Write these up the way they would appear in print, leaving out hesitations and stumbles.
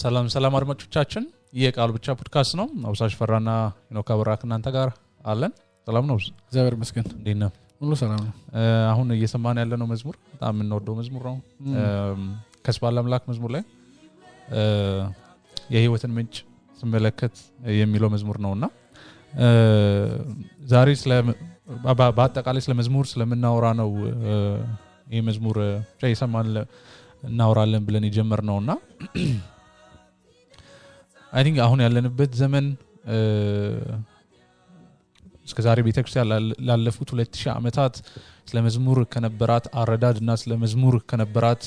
ሰላም ሰላም አድማጮቻችን የቃል ብቻ ፖድካስት ነው አብሳሽ ፈራና ሄኖክ አብራክ እናንተ ጋር አለን ሰላም ነው እግዚአብሔር ይመስገን እንዴት ነው ሁሉ ሰላም ነው አሁን እየሰማን ያለነው መዝሙር በጣም እንወደው መዝሙር ነው ከስባለ አምላክ መዝሙር ላይ የህይወትን ምንጭ ስመለከት የሚለው መዝሙር ነውና ዛሬ ስለ በአጠቃላይ ስለ መዝሙር ስለምናወራ ነው ይሄ መዝሙር ጀይሰማን እናወራለን ብለን የጀመርነውና I think አሁን ያለንበት ዘመን እስከ ዛሬ ቤተክርስቲያን ላለፉት 2000 ዓመታት ስለ መዝሙር ከነበራት አረዳድና ስለ መዝሙር ከነበራት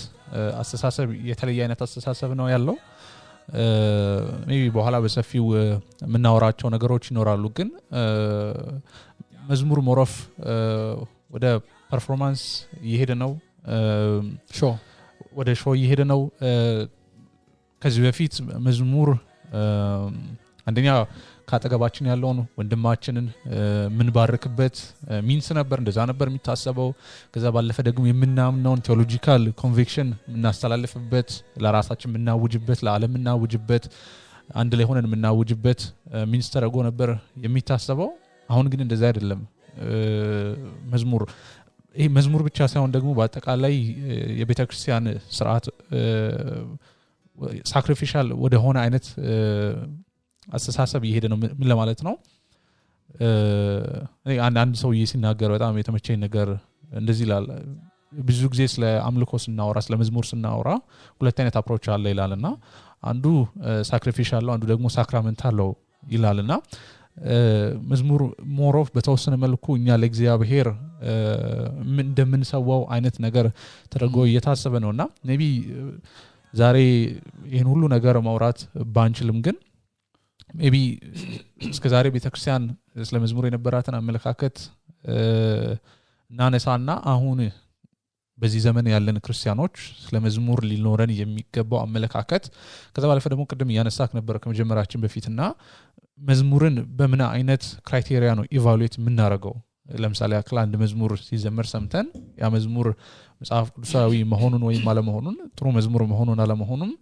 አስተሳሰብ የተለየ አይነት አስተሳሰብ ነው ያለው maybe በኋላ በሰፊው ምናወራቸው ነገሮች ይኖራሉ ግን መዝሙር ሞሮፍ ወደ ፐርፎርማንስ እየሄደ ነው ወደ ሾው እየሄደ ነው ከዚህ በፊት መዝሙር አንደኛ ካጠገባችን ያለውን ወንድማችንን ምን ባርክበት ሚንስ ነበር እንደዛ ነበር የሚታሰበው ከዛ ባለፈ ደግሞ የምናምነውን ቴዎሎጂካል ኮንቪክሽን እናስተላልፍበት ለራሳችን ምናውጅበት ለዓለም ምናውጅበት አንድ ላይ ሆነን ምናውጅበት ሚንስ ተረጎ ነበር የሚታሰበው አሁን ግን እንደዛ አይደለም መዝሙር ይሄ መዝሙር ብቻ ሳይሆን ደግሞ በአጠቃላይ የቤተክርስቲያን ሥርዓት ሳክሪፊሻል ወደ ሆነ አይነት አስተሳሰብ ይሄደ ነው ምን ለማለት ነው አንድ ሰው ሲናገር በጣም የተመቸኝ ነገር እንደዚህ ይላል ብዙ ጊዜ ስለ አምልኮ ስናወራ ስለ መዝሙር ስናወራ ሁለት አይነት አፕሮች አለ ይላልና አንዱ ሳክሪፊሻል ነው አንዱ ደግሞ ሳክራመንታል ነው ይላልና መዝሙር ሞሮፍ በተወሰነ መልኩ እኛ ለእግዚአብሔር እንደምንሰዋው አይነት ነገር ተደርጎ እየታሰበ ነውና ሜቢ ዛሬ ይሄን ሁሉ ነገር ማውራት ባንችልም ግን ሜቢ እስከ ዛሬ ቤተክርስቲያን ስለ መዝሙር የነበራትን አመለካከት እናነሳና አሁን በዚህ ዘመን ያለን ክርስቲያኖች ስለ መዝሙር ሊኖረን የሚገባው አመለካከት ከዛ ባለፈ ደግሞ ቅድም ያነሳክ ነበር ከመጀመራችን በፊትና መዝሙርን በምን አይነት ክራይቴሪያ ነው ኢቫሉዌት የምናደርገው ለምሳሌ አክል አንድ መዝሙር ሲዘመር ሰምተን ያ መዝሙር መጽሐፍ ቅዱሳዊ መሆኑን ወይም አለመሆኑን ጥሩ መዝሙር መሆኑን አለመሆኑን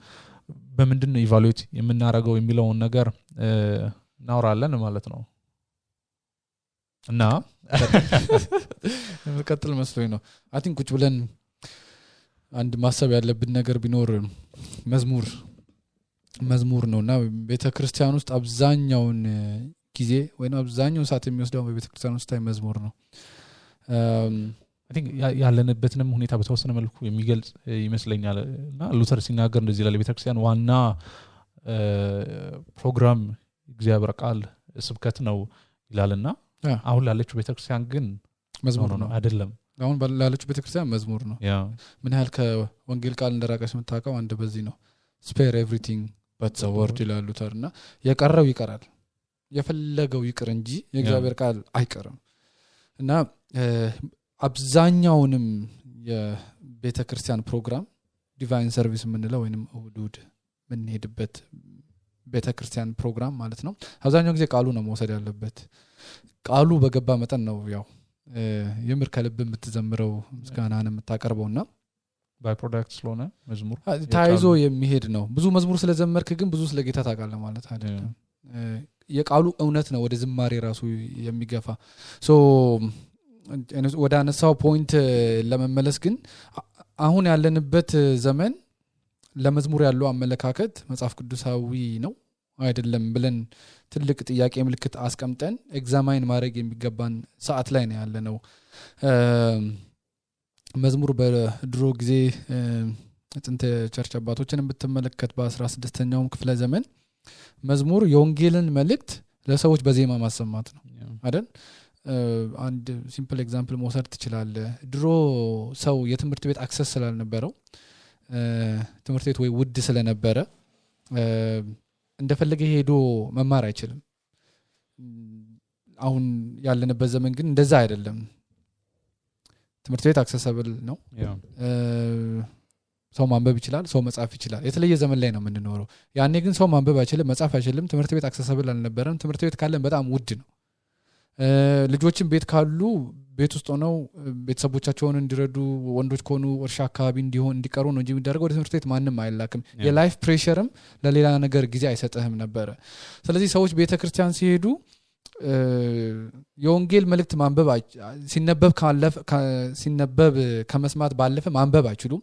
በምንድን ነው ኢቫሉዌት የምናደርገው የሚለውን ነገር እናወራለን ማለት ነው እና መቀጠል መስሎኝ ነው አይ ቲንክ ቁጭ ብለን አንድ ማሰብ ያለብን ነገር ቢኖር መዝሙር ነውና ቤተክርስቲያን ውስጥ አብዛኛውን ጊዜ ወይንም አብዛኛውን ሰዓት የሚወስደው በቤተክርስቲያን ውስጥ መዝሙር ነው I think ያለንበትንም ሁኔታ በተወሰነ መልኩ የሚገልጽ ይመስለኛልና ሉተር ሲናገር እንደዚህ ይላል ቤተክርስቲያን ዋና ፕሮግራም እግዚአብሔር ቃል ስብከት ነው ይላልና አሁን ላለችው ቤተክርስቲያን ግን መዝሙር ነው አይደለም አሁን ላለችው ቤተክርስቲያን መዝሙር ነው ምን ያህል ከወንጌል ቃል እንደራቀሽ መታቀው አንድ በዚህ ነው spare everything but the word ይላል ሉተርና የቀረው ይቀራል የፈለገው ይቅር እንጂ የእግዚአብሔር ቃል አይቀርም እና አብዛኛውንም የቤተክርስቲያን ፕሮግራም ዲቫይን ሰርቪስ ምንለው ወይንም እሁድ ምን ሄድበት ቤተክርስቲያን ፕሮግራም ማለት ነው አብዛኛው ጊዜ ቃሉ ነው መውሰድ ያለበት ቃሉ በገባ መጠን ነው ያው የምር ከልብ የምትዘምረው ምስጋናን የምታቀርበውና ባይ ፕሮዳክት ስለሆነ መዝሙር ታይዞ የሚሄድ ነው ብዙ መዝሙር ስለዘመርክ ግን ብዙ ስለጌታ ታውቃለህ ማለት አይደለም የቃሉ እውነት ነው ወደ ዝማሬ ራሱ የሚገፋ ሶ ወደ አነሳው ፖይንት ለመመለስ ግን አሁን ያለንበት ዘመን ለመዝሙር ያለው አመለካከት መጽሐፍ ቅዱሳዊ ነው አይደለም ብለን ትልቅ ጥያቄ ምልክት አስቀምጠን ኤግዛማይን ማድረግ የሚገባን ሰዓት ላይ ነው ያለነው መዝሙር በድሮ ጊዜ ጥንት ቸርች አባቶችን ብትመለከት በ16ኛው ክፍለ ዘመን መዝሙር የወንጌልን መልእክት ለሰዎች በዜማ ማሰማት ነው አይደል አንድ ሲምፕል ኤግዛምፕል መውሰድ ትችላለህ ድሮ ሰው የትምህርት ቤት አክሰስ ስላልነበረው ትምህርት ቤት ወይ ውድ ስለነበረ እንደፈለገ ሄዶ መማር አይችልም አሁን ያለንበት ዘመን ግን እንደዛ አይደለም ትምህርት ቤት አክሰሰብል ነው ሰው ማንበብ ይችላል ሰው መጻፍ ይችላል የተለየ ዘመን ላይ ነው የምንኖረው ያኔ ግን ሰው ማንበብ አይችልም መጻፍ አይችልም ትምህርት ቤት አክሰሰብል አልነበረም ትምህርት ቤት ካለን በጣም ውድ ነው ልጆችን ቤት ካሉ ቤት ውስጥ ሆነው ቤተሰቦቻቸውን እንዲረዱ ወንዶች ከሆኑ እርሻ አካባቢ እንዲቀሩ ነው እንጂ የሚደረገው ወደ ትምህርት ቤት ማንንም አይላክም የላይፍ ፕሬሸርም ለሌላ ነገር ጊዜ አይሰጥህም ነበር ስለዚህ ሰዎች ቤተክርስቲያን ሲሄዱ የወንጌል መልእክት ማንበብ ሲነበብ ከመስማት ባለፈ ማንበብ አይችሉም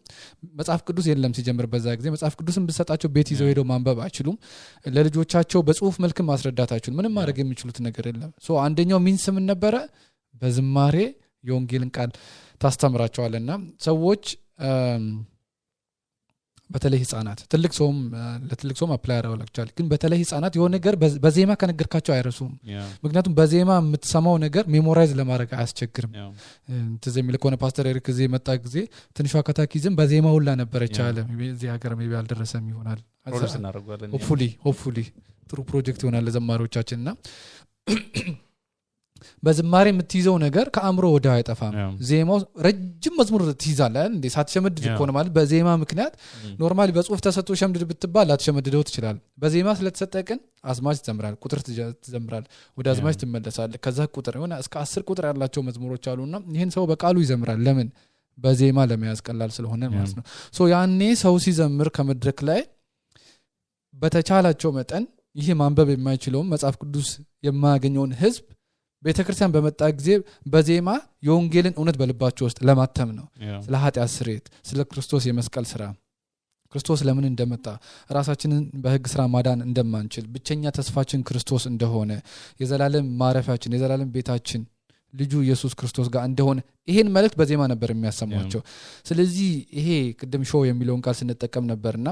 መጽሐፍ ቅዱስ የለም ሲጀምር በዛ ጊዜ መጽሐፍ ቅዱስን ብሰጣቸው ቤት ይዘው ሄደው ማንበብ አይችሉም ለልጆቻቸው በጽሁፍ መልክ ማስረዳት አይችሉም ምንም ማድረግ የሚችሉት ነገር የለም ሶ አንደኛው ሚንስ ምን ነበረ በዝማሬ የወንጌልን ቃል ታስተምራቸዋልና ሰዎች በተለይ ህፃናት ለትልቅ ሰውም አፕላይ ያደርጋቸዋል ግን በተለይ ህፃናት የሆነ ነገር በዜማ ከነገርካቸው አይረሱም ምክንያቱም በዜማ የምትሰማው ነገር ሜሞራይዝ ለማድረግ አያስቸግርም ተዘሚል ከሆነ ፓስተር ኤሪክ ጊዜ መጣ ጊዜ ትንሿ ካታኪዝም በዜማ ሁላ ነበረች አለ እዚህ ሀገር ሜቢ አልደረሰም ይሆናል ሆፕፉሊ ጥሩ ፕሮጀክት ይሆናል ለዘማሪዎቻችንና በዝማሬ የምትይዘው ነገር ከአእምሮ ወደ አይጠፋም ዜማው ረጅም መዝሙር ትይዛለህ እንዴ ሳትሸመድድ ቆነ ማለት በዜማ ምክንያት ኖርማሊ በጽሁፍ ተሰጥቶ ሸምድድ ብትባል አትሸመድደው ትችላል በዜማ ስለተሰጠቀን አዝማች ትዘምራል ቁጥር ትዘምራል ወደ አዝማች ትመለሳለህ ከዛ ቁጥር የሆነ እስከ 10 ቁጥር ያላቸው መዝሙሮች አሉና ይሄን ሰው በቃሉ ይዘምራል ለምን በዜማ ለመያዝ ቀላል ስለሆነ ማለት ነው ሶ ያኔ ሰው ሲዘምር ከመድረክ ላይ በተቻላቸው መጠን ይሄ ማንበብ የማይችለው መጽሐፍ ቅዱስ የማያገኘውን ህዝብ ቤተክርስቲያን በመጣ ጊዜ በዜማ የወንጌልን እውነት በልባቸው ውስጥ ለማተም ነው ስለ ኃጢአት ስርየት ስለ ክርስቶስ የመስቀል ስራ ክርስቶስ ለምን እንደመጣ ራሳችንን በህግ ስራ ማዳን እንደማንችል ብቸኛ ተስፋችን ክርስቶስ እንደሆነ የዘላለም ማረፊያችን የዘላለም ቤታችን ልጁ ኢየሱስ ክርስቶስ ጋር እንደሆነ ይሄን መልእክት በዜማ ነበር የሚያሰማቸው ስለዚህ ይሄ ቅድም ሾው የሚለውን ቃል ስንጠቀም ነበርና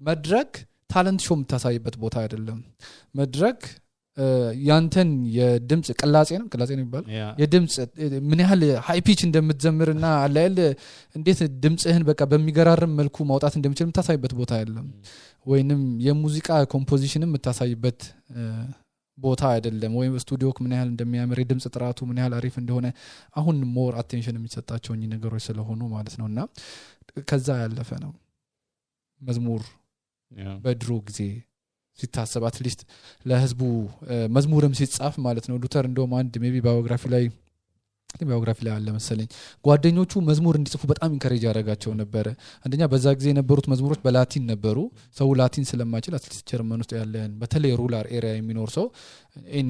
መድረክ ታለንት ሾው የምታሳይበት ቦታ አይደለም መድረክ ያንተን የድምጽ ቅላጼ ነው የሚባል የድምጽ ምን ያህል ሃይ ፒች እንደምትዘምርና አላየል እንዴት ድምጽህን በቃ በሚገራርም መልኩ ማውጣት እንደምችል የምታሳይበት ቦታ አይደለም ወይንም የሙዚቃ ኮምፖዚሽንም የምታሳይበት ቦታ አይደለም ወይም ስቱዲዮ ምን ያህል እንደሚያምር የድምጽ ጥራቱ ምን ያህል አሪፍ እንደሆነ አሁን ሞር አቴንሽን የሚሰጣቸው ነገሮች ስለሆኑ ማለት ነውና ከዛ ያለፈ ነው መዝሙር በድሮ ጊዜ ሲታሰብ አትሊስት ለህዝቡ መዝሙርም ሲጻፍ ማለት ነው ሉተር እንደውም አንድ ሜቢ ባዮግራፊ ላይ አለ መሰለኝ ጓደኞቹ መዝሙር እንዲጽፉ በጣም ኢንከሬጅ ያደርጋቸው ነበር አንደኛ በዛ ጊዜ የነበሩት መዝሙሮች በላቲን ነበሩ ሰው ላቲን ስለማይችል አትሊስት ጀርመን ውስጥ ያለን በተለይ ሩላር ኤሪያ የሚኖር ሰው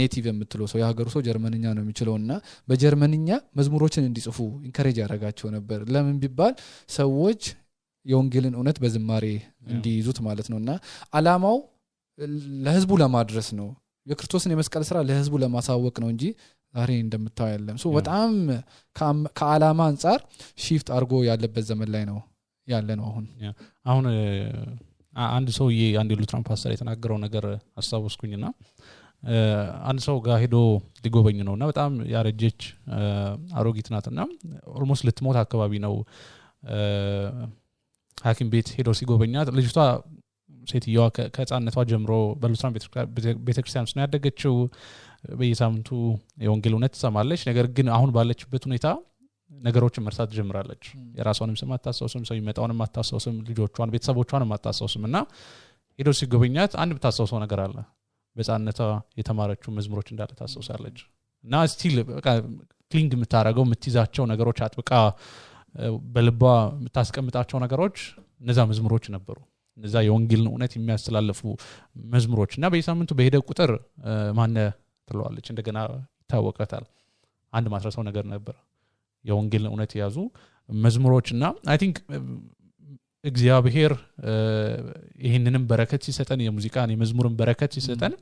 ኔቲቭ የምትለው ሰው የሀገሩ ሰው ጀርመንኛ ነው የሚችለውና በጀርመንኛ መዝሙሮችን እንዲጽፉ ኢንከሬጅ ያደርጋቸው ነበር ለምን ቢባል ሰዎች የወንጌልን እውነት በዝማሬ እንዲይዙት ማለት ነውና አላማው ለህዝቡ ለማድረስ ነው የክርስቶስን የመስቀል ስራ ለህዝቡ ለማሳወቅ ነው እንጂ ዛሬ እንደምታው ያለም ሶ በጣም ከዓላማ አንፃር ሺፍት አርጎ ያለበት ዘመን ላይ ነው ያለ ነው አሁን አንድ ሰውዬ አንድ ሉትራን ፓስተር የተናገረው ነገር አስተዋወስኩኝና አንድ ሰው ጋር ሄዶ ሊጎበኝ ነውና በጣም ያረጀች አሮጊት ናትና ኦልሞስት ልትሞት አካባቢ ነው ሐኪም ቤት ሄዶ ሲጎበኛት ልጅቷ ሴትየዋ ከህፃንነቷ ጀምሮ በሉትራን ቤተክርስቲያን ውስጥ ያደገችው በየሳምንቱ የወንጌል እውነት ትሰማለች ነገር ግን አሁን ባለችበት ሁኔታ ነገሮችን መርሳት ጀምራለች የራሷንም ስም አታስታውስም ሰው ይመጣውንም አታስታውስም ልጆቿን ቤተሰቦቿንም አታስታውስምና ሄዶ ሲጎበኛት አንድ ብታስታውሰው ነገር አለ በህፃንነቷ የተማረችው መዝሙሮች እንዳለ ታስታውሳለች እና ስቲል በቃ ክሊንግ የምታረገው የምትይዛቸው ነገሮች አጥብቃ በልቧ የምታስቀምጣቸው ነገሮች እነዛ መዝሙሮች ነበሩ እነዛ የወንጌልን እውነት የሚያስተላልፉ መዝሙሮችና በየሳምንቱ በሄደ ቁጥር ማነ ትለዋለች እንደገና ይታወቃታል አንድ ማስረሰው ነገር ነበር የወንጌልን እውነት ያዙ መዝሙሮችና አይ ቲንክ እግዚአብሔር ይሄንንም በረከት ሲሰጠን የሙዚቃን የመዝሙርን በረከት ሲሰጠን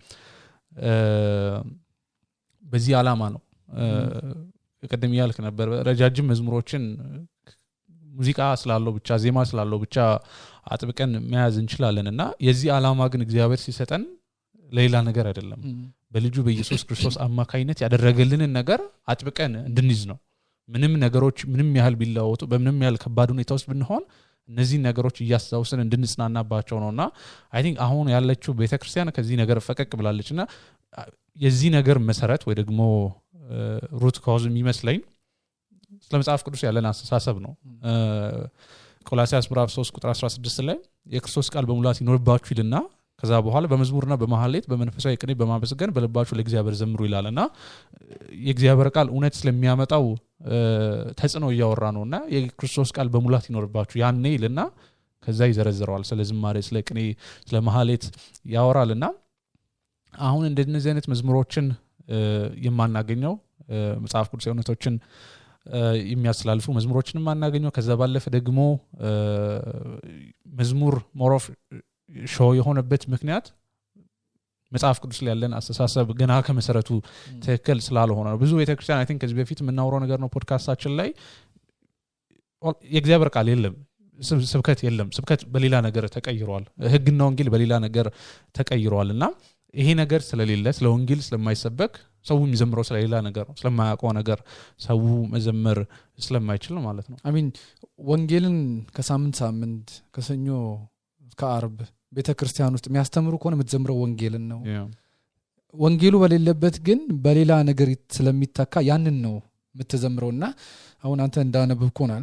በዚህ ዓላማ ነው ቀደም ያልክ ነበር ረጃጅም መዝሙሮችን ሙዚቃ ስላለው ብቻ ዜማ ስላለው ብቻ አጥብቀን መያዝ እንችላለንና የዚህ ዓላማ ግን እግዚአብሔር ሲሰጠን ሌላ ነገር አይደለም በልጁ በኢየሱስ ክርስቶስ አማካይነት ያደረገልንን ነገር አጥብቀን እንድንይዝ ነው ምንም ነገሮች ምንም ያህል ቢላወጡ በምንም ያህል ከባድ ሁኔታ ውስጥ ብንሆን እነዚህ ነገሮች እያስተዋወስን እንድንጽናናባቸው ነውና አይ ቲንክ አሁን ያለችው ቤተክርስቲያን ከዚህ ነገር ፈቀቅ ብላለችና የዚህ ነገር መሰረት ወይ ደግሞ ሩት ኮዝ የሚመስለኝ ስለመጽሐፍ ቅዱስ ያለን አስተሳሰብ ነው ቆላስይስ ምዕራፍ 3 ቁጥር 16 ላይ የክርስቶስ ቃል በሙላት ይኖርባችሁ ይልና ከዛ በኋላ በመዝሙርና በመሐሌት በመንፈሳዊ ቅኔ በማመስገን በልባችሁ ለእግዚአብሔር ዘምሩ ይላልና የእግዚአብሔር ቃል እውነት ስለሚያመጣው ተጽዕኖ እያወራ ነውና የክርስቶስ ቃል በሙላት ይኖርባችሁ ያኔ ይልና ከዛ ይዘረዝረዋል ስለ ዝማሬ ስለ ቅኔ ስለ መሐሌት ያወራልና አሁን እንደነዚህ አይነት መዝሙሮችን የማናገኘው መጽሐፍ ቅዱስ እውነቶችን የሚያስላልፉ መዝሙሮችንም ማናገኘው ከዛ ባለፈ ደግሞ መዝሙር ሞሮፍ ሾው የሆነበት ምክንያት መጽሐፍ ቅዱስ ላይ ያለን አስተሳሰብ ገና ከመሰረቱ ትክክል ስላልሆነ ነው ብዙ ቤተክርስቲያን አይ ቲንክ ከዚህ በፊት የምናወራው ነገር ነው ፖድካስታችን ላይ የእግዚአብሔር ቃል የለም ስብከት የለም ስብከት በሌላ ነገር ተቀይሯል ህግና ወንጌል በሌላ ነገር ተቀይሯልና ይሄ ነገር ስለሌለ ስለ ወንጌል ስለማይሰበክ ሰው የሚዘምረው ስለሌላ ነገር ነው ስለማያውቀው ነገር ሰው መዘመር ስለማይችል ማለት ነው አይ ሚን ወንጌልን ከሳምንት ሳምንት ከሰኞ እስከ ዓርብ ቤተክርስቲያን ውስጥ የሚያስተምሩ ከሆነ የምትዘምረው ወንጌልን ነው ወንጌሉ በሌለበት ግን በሌላ ነገር ስለሚተካ ያንን ነው የምትዘምረውና አሁን አንተ እንዳነበብኩናል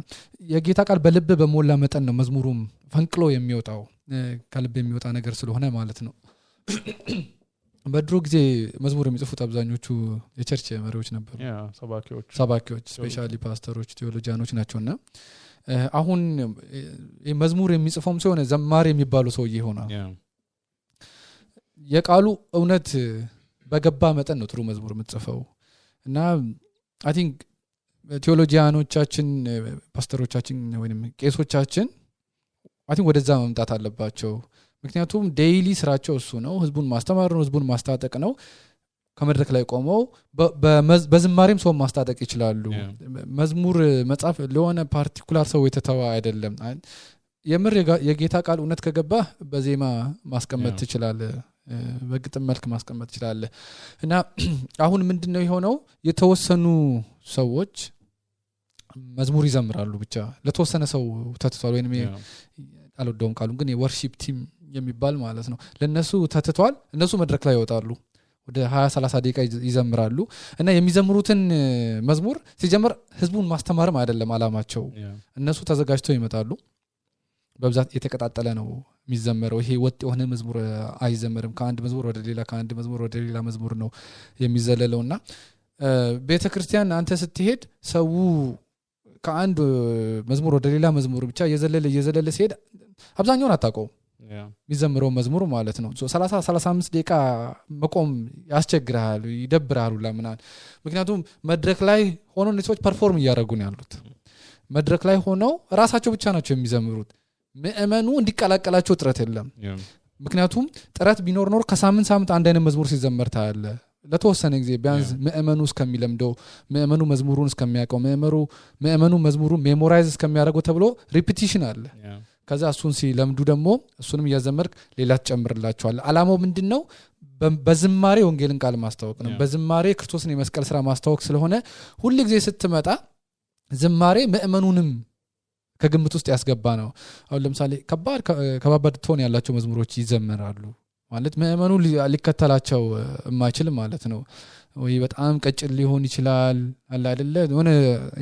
የጌታ ቃል በልብ በሞላ መጠን ነው መዝሙሩም ፈንቅሎ የሚወጣው ከልብ የሚወጣ ነገር ስለሆነ ማለት ነው በድሮ ጊዜ መዝሙር የሚጽፉት አብዛኞቹ የቸርች መሪዎች ነበሩ ሰባኪዎች ስፔሻሊ ፓስተሮች ቴዎሎጂያኖች ናቸውና አሁን መዝሙር የሚጽፈውም ሲሆን ዘማሪ የሚባሉ ሰውዬ ይሆናል የቃሉ እውነት በገባ መጠን ነው ጥሩ መዝሙር የምትጽፈው እና አይ ቲንክ ቴዎሎጂያኖቻችን ፓስተሮቻችን ወይንም ቄሶቻችን አይ ቲንክ ወደዛ መምጣት አለባቸው ምክንያቱም ዴይሊ ስራቸው እሱ ነው ህዝቡን ማስተማር ነው ህዝቡን ማስታጠቅ ነው ከመድረክ ላይ ቆመው በዝማሬም ሰው ማስታጠቅ ይችላሉ መዝሙር መጻፍ ለሆነ ፓርቲኩላር ሰው የተተዋ አይደለም የምር የጌታ ቃል እውነት ከገባ በዜማ ማስቀመጥ ትችላለህ በግጥም መልክ ማስቀመጥ ትችላለህ እና አሁን ምንድነው የሆነው የተወሰኑ ሰዎች መዝሙር ይዘምራሉ ብቻ ለተወሰነ ሰው ተትቷል ወይንም አልወደውም ቃሉን ግን የወርሺፕ ቲም የሚባል ማለት ነው ለነሱ ተትቷል እነሱ መድረክ ላይ ይወጣሉ ወደ 20-30 ደቂቃ ይዘምራሉ እና የሚዘምሩትን መዝሙር ሲጀምር ህዝቡን ማስተማርም አይደለም አላማቸው እነሱ ተዘጋጅተው ይመጣሉ በብዛት የተቀጣጠለ ነው የሚዘመረው ይሄ ወጥ የሆነ መዝሙር አይዘመርም ከአንድ መዝሙር ወደ ሌላ ከአንድ መዝሙር ወደ ሌላ መዝሙር ነው የሚዘለለውና ቤተክርስቲያን አንተ ስትሄድ ሰው ከአንድ መዝሙር ወደ ሌላ መዝሙር ብቻ እየዘለለ ሲሄድ አብዛኛውን አታውቀው የሚዘምረው መዝሙር ማለት ነው 30-35 ደቂቃ መቆም ያስቸግራል ይደብራል ለምናን ምክንያቱም መድረክ ላይ ሆኖ እነዚህ ፐርፎርም እያደረጉ ነው ያሉት መድረክ ላይ ሆነው ራሳቸው ብቻ ናቸው የሚዘምሩት ምእመኑ እንዲቀላቀላቸው ጥረት የለም ምክንያቱም ጥረት ቢኖር ኖር ከሳምንት አንድ አይነት መዝሙር ሲዘመር ታያለ ለተወሰነ ጊዜ ቢያንስ ምእመኑ እስከሚለምደው ምእመኑ መዝሙሩን እስከሚያውቀው ምእመኑ መዝሙሩን ሜሞራይዝ እስከሚያደርገው ተብሎ ሪፒቲሽን አለ ከዛ እሱን ሲለምዱ ደግሞ እሱንም ያዘመርክ ሌላ ተጨምርላቸዋል አላማው ምንድነው በዝማሬ ወንጌልን ቃል ማስተዋወቅ ነው በዝማሬ ክርስቶስን የመስቀል ስራ ማስተዋወቅ ስለሆነ ሁሉ ጊዜ ስትመጣ ዝማሬ ምእመኑንም ከግምት ውስጥ ያስገባ ነው አሁን ለምሳሌ ከባድ ቶን ያላቸው መዝሙሮች ይዘመራሉ ማለት ምእመኑ ሊከተላቸው የማይችል ማለት ነው ወይ በጣም ቀጭን ሊሆን ይችላል አለ አይደለ ሆነ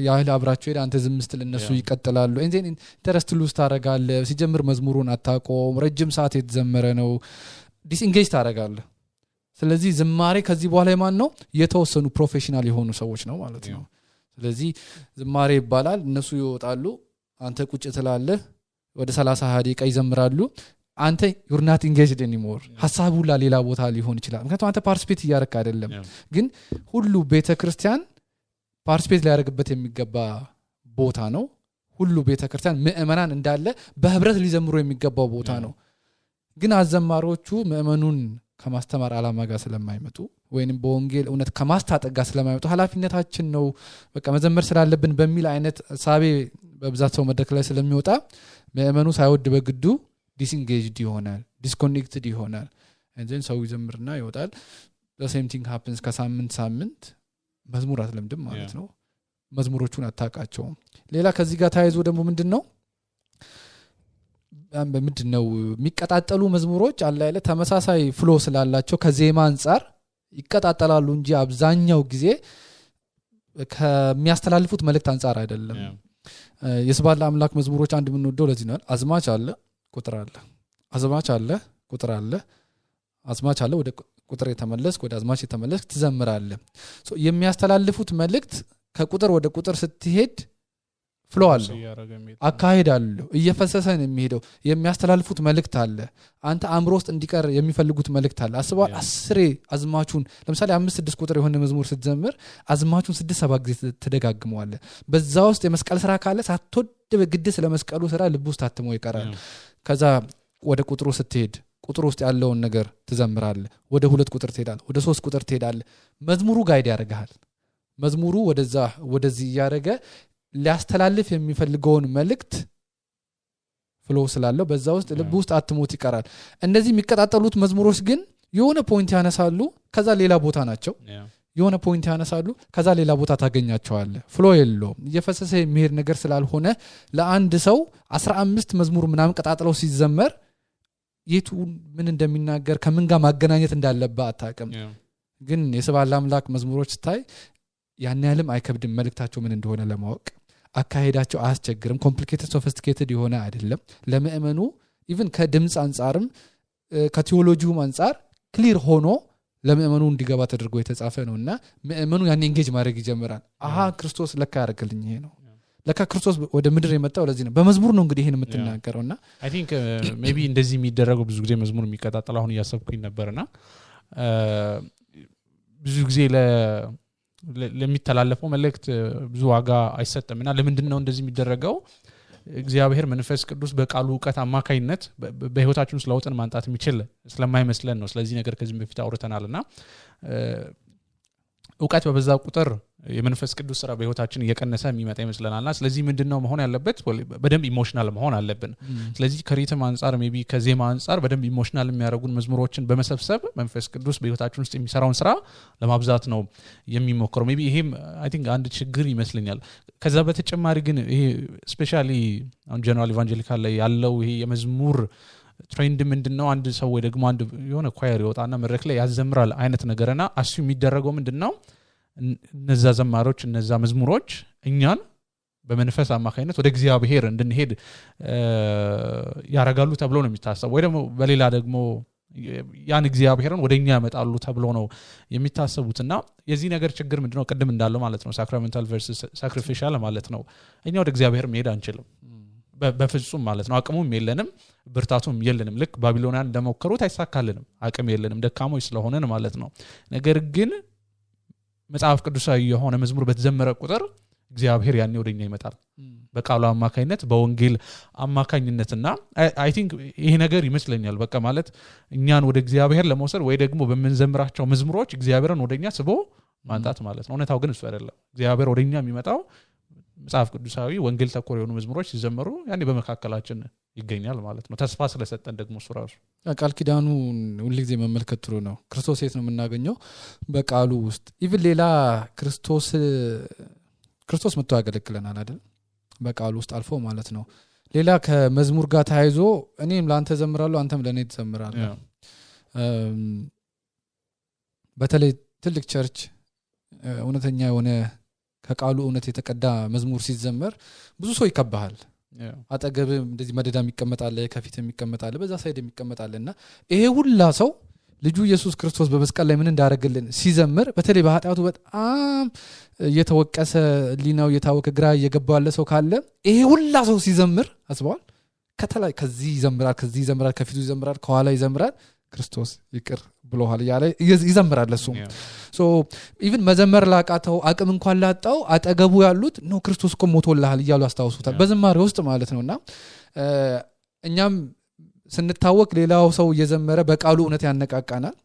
ያህል አብራቸው ሄደ አንተ ዝም ስትል እነሱ ይቀጥላሉ እንዴ ኢንተረስት ሉዝ ታረጋለህ ሲጀምር መዝሙሩን አታቆም ረጅም ሰዓት የተዘመረ ነው ዲስኢንጌጅ ታረጋለህ ስለዚህ ዝማሬ ከዚህ በኋላ የማን ነው የተወሰኑ ፕሮፌሽናል የሆኑ ሰዎች ነው ማለት ነው ስለዚህ ዝማሬ ይባላል እነሱ ይወጣሉ አንተ ቁጭ ትላለህ ወደ 30 ደቂቃ ይዘምራሉ አንተ you're not engaged anymore ሐሳቡ ሌላ ቦታ ሊሆን ይችላል ምክንያቱም አንተ ፓርቲሲፔት እያደረክ አይደለም ግን ሁሉ ቤተክርስቲያን ፓርቲሲፔት ሊያደርግበት የሚገባ ቦታ ነው ሁሉ ቤተክርስቲያን ምእመናን እንዳለ በህብረት ሊዘምሩ የሚገባው ቦታ ነው ግን አዘማሪዎቹ ምእመኑን ከማስተማር አላማ ጋር ስለማይመጡ ወይንም በወንጌል እውነት ከማስታጠቅ ጋር ስለማይመጡ ሐላፊነታችን ነው በቃ መዘመር ስላለብን በሚል አይነት ሳቤ በብዛት ሰው መድረክ ላይ ስለሚወጣ ምእመኑ ሳይወድ በግዱ disengaged ይሆናል disconnected ይሆናል and then ሰው ይዘምርና ይወጣል the same thing happens ከሳምንት መዝሙር አትለምድም ማለት ነው መዝሙሮቹን አታቃቸው ሌላ ከዚህ ጋር ታይዞ ደግሞ ምንድነው የሚቀጣጠሉ መዝሙሮች አለ አይደል ተመሳሳይ ፍሎ ስላላቸው ከዜማ አንፃር ይቀጣጣላሉ እንጂ አብዛኛው ጊዜ ከሚያስተላልፉት መልእክት አንፃር አይደለም የስባላ አምላክ መዝሙሮች አንድ ምን ወደው ለዚህ ነው አዝማች አለ ቁጥር አለ አዝማች አለ ቁጥር አለ አዝማች አለ ወደ ቁጥር የተመለስክ ወደ አዝማች የተመለስክ ትዘምራለህ የሚያስተላልፉት መልእክት ከቁጥር ወደ ቁጥር ስትሄድ ፍሎ አለ አካሄድ አለ እየፈሰሰ ነው የሚሄደው የሚያስተላልፉት መልእክት አለ አንተ አእምሮ ውስጥ እንዲቀር የሚፈልጉት መልእክት አለ አስበው 10 አዝማቹን ለምሳሌ 5-6 ቁጥር የሆነ መዝሙር ስትዘምር አዝማቹን 6-7 ጊዜ ተደጋግመዋለህ በዛ ውስጥ የመስቀል ስራ ካለ ሳትወድ በግድ ስለመስቀሉ ስራ ልብ ውስጥ ታትሞ ይቀራል ከዛ ወደ ቁጥሩ ስትሄድ ቁጥሩ ውስጥ ያለውን ነገር ትዘምራለህ ወደ 2 ቁጥር ትሄዳለህ ወደ 3 ቁጥር ትሄዳለህ መዝሙሩ ጋይድ ያደርጋል መዝሙሩ ወደዚህ ያደረገ ሊያስተላልፍ የሚፈልገውን መልእክት ፍሎ ስላለው በዛ ውስጥ ልብ ውስጥ አትሞት ይቀራል እንደዚህ የሚከታተሉት መዝሙሮች ግን የሆነ ፖይንት ያነሳሉ ከዛ ሌላ ቦታ ናቸው የሆነ ፖይንት ያነሳሉ ከዛ ሌላ ቦታ ታገኛቸዋለህ ፍሎ የለውም እየፈሰሰ የሚሄድ ነገር ስላልሆነ ለአንድ ሰው 15 መዝሙር ምናምን ቀጣጥለው ሲዘመር የቱ ምን እንደሚናገር ከምን ጋር ማገናኘት እንዳለበት አታውቅም ግን የሰባላ አምላክ መዝሙሮች ታይ ያን ያለም አይከብድም መልእክታቸው ምን እንደሆነ ለማወቅ አካሄዳቸው አያስቸግርም ኮምፕሊኬትድ ሶፊስቲኬትድ የሆነ አይደለም ለምእመኑ ኢቭን ከድምጽ አንፃርም ከቲዮሎጂውም አንፃር ክሊር ሆኖ ለምእመኑ እንዲገባ ተደርጎ የተጻፈ ነውና ምእመኑ ያን ኤንጌጅ ማድረግ ይጀምራል ክርስቶስ ለካ ያደርግልኝ ይሄ ነው ለካ ክርስቶስ ወደ ምድር የመጣው ለዚህ ነው በመዝሙር ነው እንግዲህ ይሄን የምትናገረውና አይ ቲንክ ሜቢ እንደዚህ የሚደረገው ብዙ ጊዜ መዝሙር የሚቀጣጣል አሁን ያሰብኩኝ ነበርና ብዙ ጊዜ ለሚተላለፈው መልእክት ብዙ ዋጋ አይሰጥምና ለምንድነው እንደዚህ የሚደረገው እግዚአብሔር መንፈስ ቅዱስ በቃሉ ዕውቀት አማካይነት በህይወታችን ውስጥ ለውጥን ማንጣት የሚችል ስለማይመስለን ነው ስለዚህ ነገር ከዚህ በፊት አውርተናልና ዕውቀት በበዛ ቁጥር የመንፈስ ቅዱስ ስራ በህይወታችን እየቀነሰ የሚመጣ ይመስለናልና ስለዚህ ምንድነው መሆን ያለበት በደንብ ኢሞሽናል መሆን አለብን ስለዚህ ከሪትም አንፃር ሜቢ ከዜማ አንፃር በደንብ ኢሞሽናል የሚያደርጉን መዝሙሮችን በመሰብሰብ መንፈስ ቅዱስ በህይወታችን ውስጥ የሚሰራውን ስራ ለማብዛት ነው የሚሞክረው ሜቢ ይሄም አይ ቲንክ አንድ ችግር ይመስለኛል ከዛ በተጨማሪ ግን ይሄ ስፔሻሊ አን ጀነራል ኢቫንጀሊካል ላይ ያለው ይሄ የመዝሙር ትሬንድ ምንድነው አንድ ሰው ወይ ደግሞ አንድ የሆነ ኳየር ይወጣና መድረክ ላይ ያዘምራል አይነት ነገርና አሱ የሚደረገው ምንድነው እነዛ ዘማሮች እነዛ መዝሙሮች እኛን በመንፈስ አማካይነት ወደ እግዚአብሔር እንድንሄድ ያረጋሉ ተብሎ ነው የሚታሰበው ወይ ደግሞ በሌላ ደግሞ ያን እግዚአብሔርን ወደኛ ያመጣሉ ተብሎ ነው የሚታሰቡትና የዚህ ነገር ችግር ምንድነው ቀደም እንዳለው ማለት ነው ሳክራሜንታል ቨርሰስ ሳክሪፊሻል ማለት ነው እኛ ወደ እግዚአብሔር መሄድ አንችልም በፍጹም ማለት ነው አቅሙም የለንም ብርታቱም የለንም ልክ ባቢሎናን እንደሞከሩት አይሳካልንም አቅም የለንም ደካሞች ስለሆነን ማለት ነው ነገር ግን መጽሐፍ ቅዱሳዊ የሆነ መዝሙር በተዘመረ ቁጥር እግዚአብሔር ያኔ ወደኛ ይመጣል በቃሉ አማካኝነት በወንጌል አማካኝነትና አይ ቲንክ ይሄ ነገር ይመስለኛል በቃ ማለት እኛን ወደ እግዚአብሔር ለመውሰድ ወይ ደግሞ በመንዘምራቸው መዝሙሮች እግዚአብሔርን ወደኛ ስቦ ማንጣት ማለት ነው እውነታው ግን እሱ አይደለም እግዚአብሔር ወደኛ የሚመጣው መጽሐፍ ቅዱሳዊ ወንጌል ተኮር የሆኑ መዝሙሮች ሲዘመሩ ያኔ በመካከላችን ይገኛል ማለት ነው ተስፋ ስለሰጠን ደግሞ እሱ ራሱ ቃል ኪዳኑ ሁሉ ጊዜ መመልከት ጥሩ ነው ክርስቶስ የት ነው የምናገኘው በቃሉ ውስጥ ኢቭን ሌላ ክርስቶስ መጥቶ ያገለግለናል አይደል በቃሉ ውስጥ አልፎ ማለት ነው ሌላ ከመዝሙር ጋር ታይዞ እኔም ላንተ ዘምራለሁ አንተም ለኔ ትዘምራለህ በተለይ ትልቅ ቸርች እውነተኛ የሆነ ከቃሉ እውነት የተቀዳ መዝሙር ሲዘመር ብዙ ሰው ይከባሃል አጠገብ እንደዚህ መደዳ የሚቀመጣል ከፊት የሚቀመጣል በዛ ሳይድ የሚቀመጣልና ይሄ ሁላ ሰው ልጁ ኢየሱስ ክርስቶስ በመስቀል ላይ ምን እንዳደረገልን ሲዘምር በተለይ በኃጢአቱ በጣም እየተወቀሰ ሊናው እየታወቀ ግራ እየገባው ያለ ሰው ካለ ይሄ ሁላ ሰው ሲዘምር አስበዋል ከተላይ ከዚህ ይዘምራል ከፊቱ ይዘምራል ከኋላ ይዘምራል ክርስቶስ ይቅር ብሎሃል ያለ ይዘምራል እሱ ሶ ኢቭን መዘመር ላቃተው አቅም እንኳን ላጣው አጠገቡ ያሉት ነው ክርስቶስ እኮ ሞቶልሃል ይያሉ አስተዋውሱታል በዝማሬ ውስጥ ማለት ነውና እኛም ስንታወቅ ሌላው ሰው እየዘመረ በቃሉ እውነት ያነቃቃናል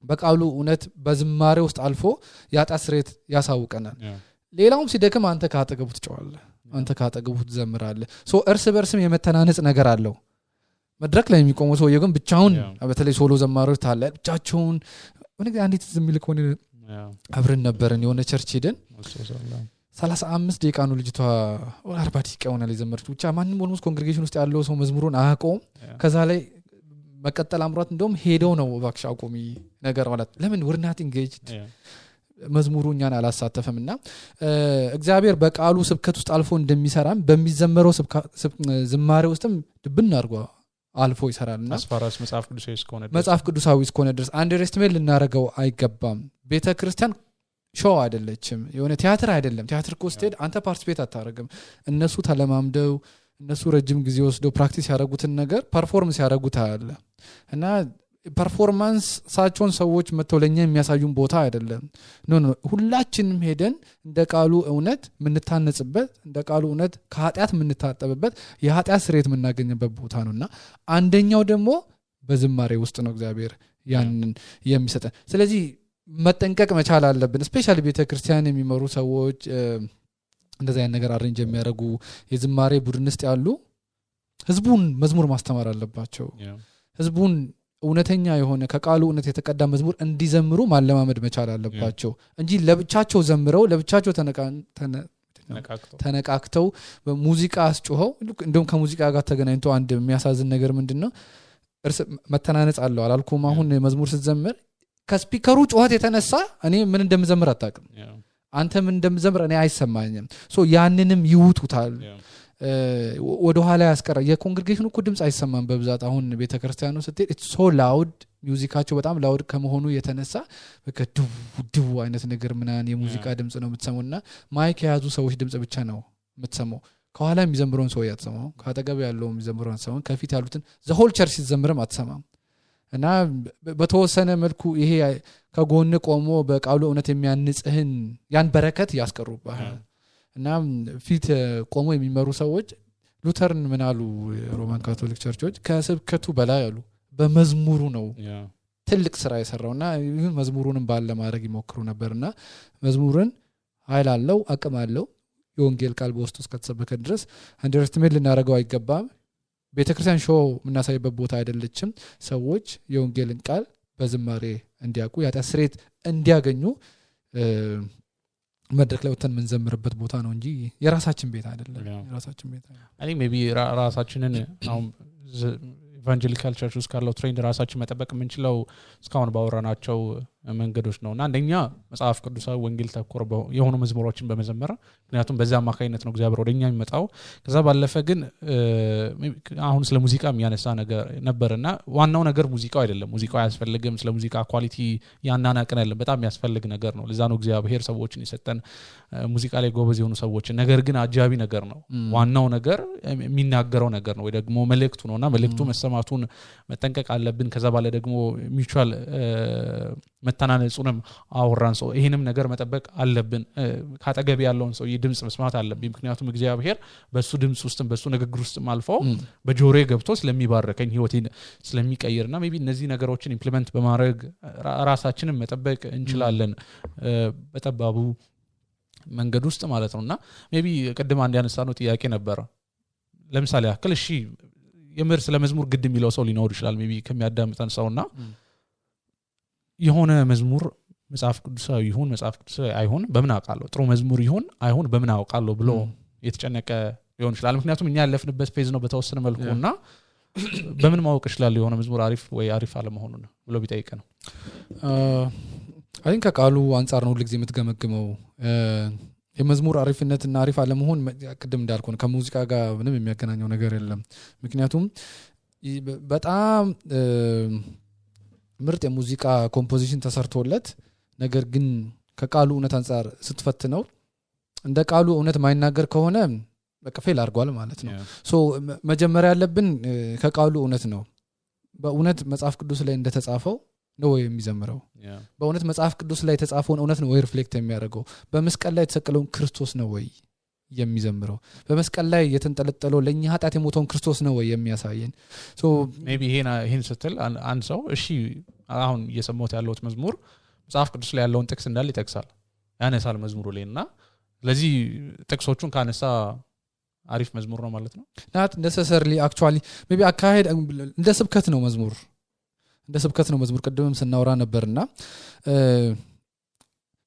በቃሉ እውነት በዝማሬ ውስጥ አልፎ ያጣስሬት ያሳውቀናል ሌላውም ሲደክም አንተ ካጠገቡ ትጫዋለህ አንተ ካጠገቡ ትዘምራለህ ሶ እርስ በርስም የመተናነጽ ነገር አለው መድረክ ላይ የሚቆመው ሰው ግን ብቻውን በተለይ ሶሎ ዘማሪዎች ታለ ብቻቸውን ወንጌ አንዲት ዝምልክ ሆነ አብረን ነበርን የሆነ ቸርች ሄደን 35 ደቂቃ ነው ልጅቷ 40 ደቂቃ ሆነ ለዘመረች ብቻ ማንንም ኦልሞስት ኮንግሪጌሽን ውስጥ ያለው ሰው መዝሙሩን አያቆም ከዛ ላይ መቀጠል አምሯት እንደውም ሄደው ነው ባክሽ አቆሚ ነገር ማለት ለምን we're not engaged መዝሙሩ እኛን አላሳተፈምና እግዚአብሔር በቃሉ ስብከት ውስጥ አልፎ እንደሚሰራም በሚዘመረው ዝማሬ ውስጥም ድብን አድርጓ አልፎ ይሰራልና አስፋራስ መጽሐፍ ቅዱሳዊ እስከሆነ ድረስ አንደርስቲሜት ልናረጋው አይገባም ቤተክርስቲያን ሾው አይደለችም የሆነ ቲያትር አይደለም ቲያትር ኮስቴድ አንተ ፓርቲሲፔት አታረግም እነሱ ተለማምደው እነሱ ረጅም ጊዜ ወስደው ፕራክቲስ ያደረጉትን ነገር ፐርፎርማንስ ያደረጉት አለ እና ፐርፎርማንስ ሳቸውን ሰዎች መተውለኛ የሚያሳዩን ቦታ አይደለም ኖ ሁላችንም ሄደን እንደ ቃሉ እውነት ምንታነጽበት እንደ ቃሉ እውነት ከኃጢአት ምንታጠብበት የኃጢአት ስርየት ምናገኝበት ቦታ ነውና አንደኛው ደግሞ በዝማሬ ውስጥ ነው እግዚአብሔር ያንን የሚሰጠን ስለዚህ መጠንቀቅ መቻል አለብን ስፔሻሊ ቤተክርስቲያን የሚመሩ ሰዎች እንደዛ ያን ነገር አሬንጅ የሚያደርጉ የዝማሬ ቡድን ውስጥ ያሉ ህዝቡን መዝሙር ማስተማር አለባቸው ህዝቡን እውነተኛ የሆነ ከቃሉ እውነት የተቀዳ መዝሙር እንዲዘምሩ ማለማመድ መቻል አለባቸው እንጂ ለብቻቸው ዘምረው ለብቻቸው ተነቃክተው በሙዚቃ አስጮኸው እንደውም ከሙዚቃ ጋር ተገናኝቶ አንድ የሚያሳዝን ነገር ምንድነው መተናነጽ አለው አላልኩም አሁን መዝሙር ስትዘምር ከስፒከሩ ጮኸት የተነሳ እኔ ምን እንደምዘምር አጣቅም አንተ ምን እንደምዘምር እኔ አይሰማኝም ሶ ያንንም ይውቱታል ወደ ኋላ ያስቀራ የኮንግሪጌሽኑ እኮ ድምጽ አይሰማም በብዛት አሁን ቤተክርስቲያኑ ስትሄድ ኢትስ ሶ ላውድ ሚውዚካቸው በጣም ላውድ ከመሆኑ የተነሳ በከዱ አይነት ነገር ምናን የሙዚቃ ድምጽ ነው የምትሰሙና ማይክ የያዙ ሰዎች ድምጽ ብቻ ነው የምትሰማው ከኋላ የሚዘምሩን ሰው ያትሰማው ካጠገብ ያለው የሚዘምሩን ሰው ከፊት ያሉትን ዘ ሆል ቸርች ሲዘምርም አትሰማም እና በተወሰነ መልኩ ይሄ ከጎን ቆሞ በቃሉ እውነት የሚያንጽህን ያን በረከት ያስቀሩባል እና ፊት ቆሞ የሚመሩ ሰዎች ሉተርን ምናሉ ሮማን ካቶሊክ ቸርቾች ከስብከቱ በላይ ያሉ በመዝሙሩ ነው ትልቅ ስራ የሰራውና ይሁን መዝሙሩንም ባለ ማድረግ ይሞክሩ ነበርና መዝሙርን ኃይል አለው አቅም አለው የወንጌል ቃል በውስጡ እስከተሰበከ ድረስ አንደርስቲሜት ልናረጋው አይገባም ቤተክርስቲያን ሾው ምናሳይበት ቦታ አይደለችም ሰዎች የወንጌልን ቃል በዝማሬ እንዲያውቁ ያጣ ስሬት እንዲያገኙ መድረክ ላይ ወተን ምንዘምርበት ቦታ ነው እንጂ የራሳችን ቤት አይደለም የራሳችን ቤት አይ ሜቢ ራሳችንን አሁን ኢቫንጀሊካል ቸርች ውስጥ ካለው ትሬንድ ራሳችን መጠበቅ የምንችለው እስካሁን ባወራናቸው መንገዶች ነውና አንደኛ መጽሐፍ ቅዱሳዊ ወንጌል ተኮር የሆኑ መዝሙሮችን በመዘመር ምክንያቱም በዛ አማካይነት ነው እግዚአብሔር ወደኛ የሚመጣው ከዛ ባለፈ ግን አሁን ስለ ሙዚቃ የሚያነሳ ነገር ነበርና ዋናው ነገር ሙዚቃው አይደለም ሙዚቃው ያስፈልግም ስለ ሙዚቃ ኳሊቲ ያናናቀን አይደለም በጣም ያስፈልግ ነገር ነው ለዛ ነው እግዚአብሔር ሰዎችን የሰጠን ሙዚቃ ላይ ጎበዝ የሆኑ ሰዎች ነገር ግን አጃቢ ነገር ነው ዋናው ነገር የሚናገረው ነገር ነው ወይ ደግሞ መልእክቱ ነውና መልእክቱ መሰማቱን መጠንቀቅ አለብን ከዛ ባለ ደግሞ ሚውቹዋል መተናነጹንም አወራን ሰው ይሄንም ነገር መጠበቅ አለብን ካጠገብ ያለውን ሰው የድምጽ መስማት አለብን ምክንያቱም እግዚአብሔር በሱ ድምጽ ውስጥም በሱ ንግግር ውስጥም አልፎ በጆሮዬ ገብቶ ስለሚባርከኝ ህይወቴን ስለሚቀይርና ሜቢ እነዚህ ነገሮችን ኢምፕሊመንት በማድረግ ራሳችንን መጠበቅ እንችላለን በተባቡ መንገድ ውስጥ ማለት ነውና ሜቢ ቀደም አንድ ያነሳነው ጥያቄ ነበር ለምሳሌ አክል እሺ የምር ስለ መዝሙር ግድ የሚለው ሰው ሊኖር ይችላል ሜቢ ከሚያዳምጠን ሰውና የሆነ መዝሙር መጽሐፍ ቅዱሳዊ ይሁን መጽሐፍ ቅዱሳዊ አይሁን በምን አውቃለሁ ጥሩ መዝሙር ይሁን አይሁን በምን አውቃለሁ ብሎ የተጨነቀ ሊሆን ይችላል ምክንያቱም እኛ ያለፍንበት ፌዝ ነው በተወሰነ መልኩና በምን ማወቅ ይችላል የሆነ መዝሙር አሪፍ ወይ አሪፍ አለመሆኑን ብሎ ቢጠይቅ ነው አይን ከቃሉ አንፃር ነው ሁሉ ጊዜ የምትገመግመው የመዝሙር አሪፍነትና አሪፍ አለመሆን ቅድም እንዳልኩ ነው ከሙዚቃ ጋር ምንም የሚያገናኘው ነገር የለም ምክንያቱም በጣም ምርጥ የሙዚቃ ኮምፖዚሽን ተሰርቶለት ነገር ግን ከቃሉ እውነት አንፃር ስትፈትነው እንደ ቃሉ እውነት ማይናገር ከሆነ በቃ ፌል አድርጓል ማለት ነው ሶ መጀመሪያ ያለብን ከቃሉ እውነት ነው በእውነት መጽሐፍ ቅዱስ ላይ እንደተጻፈው ነው የሚዘምረው በእውነት መጽሐፍ ቅዱስ ላይ የተጻፈውን እውነት ነው ወይ ሪፍሌክት የሚያደርገው በመስቀል ላይ የተሰቀለውን ክርስቶስ ነው ወይ የሚዘምረው በመስቀል ላይ የተንጠለጠለው ለኛ ኃጢአት የሞተውን ክርስቶስ ነው ወይ የሚያሳየን ሶ ሜቢ ይሄን ስትል አንድ ሰው እሺ አሁን እየሰማሁት ያለውት መዝሙር መጽሐፍ ቅዱስ ላይ ያለውን ጥቅስ እንዳለ ይጠቅሳል ያነሳል መዝሙሩ ላይና ስለዚህ ጥቅሶቹን ካነሳ አሪፍ መዝሙር ነው ማለት ነው not necessarily actually maybe አካሄድ እንደ ስብከት ነው መዝሙር ቅድምም ስናወራ ነበርና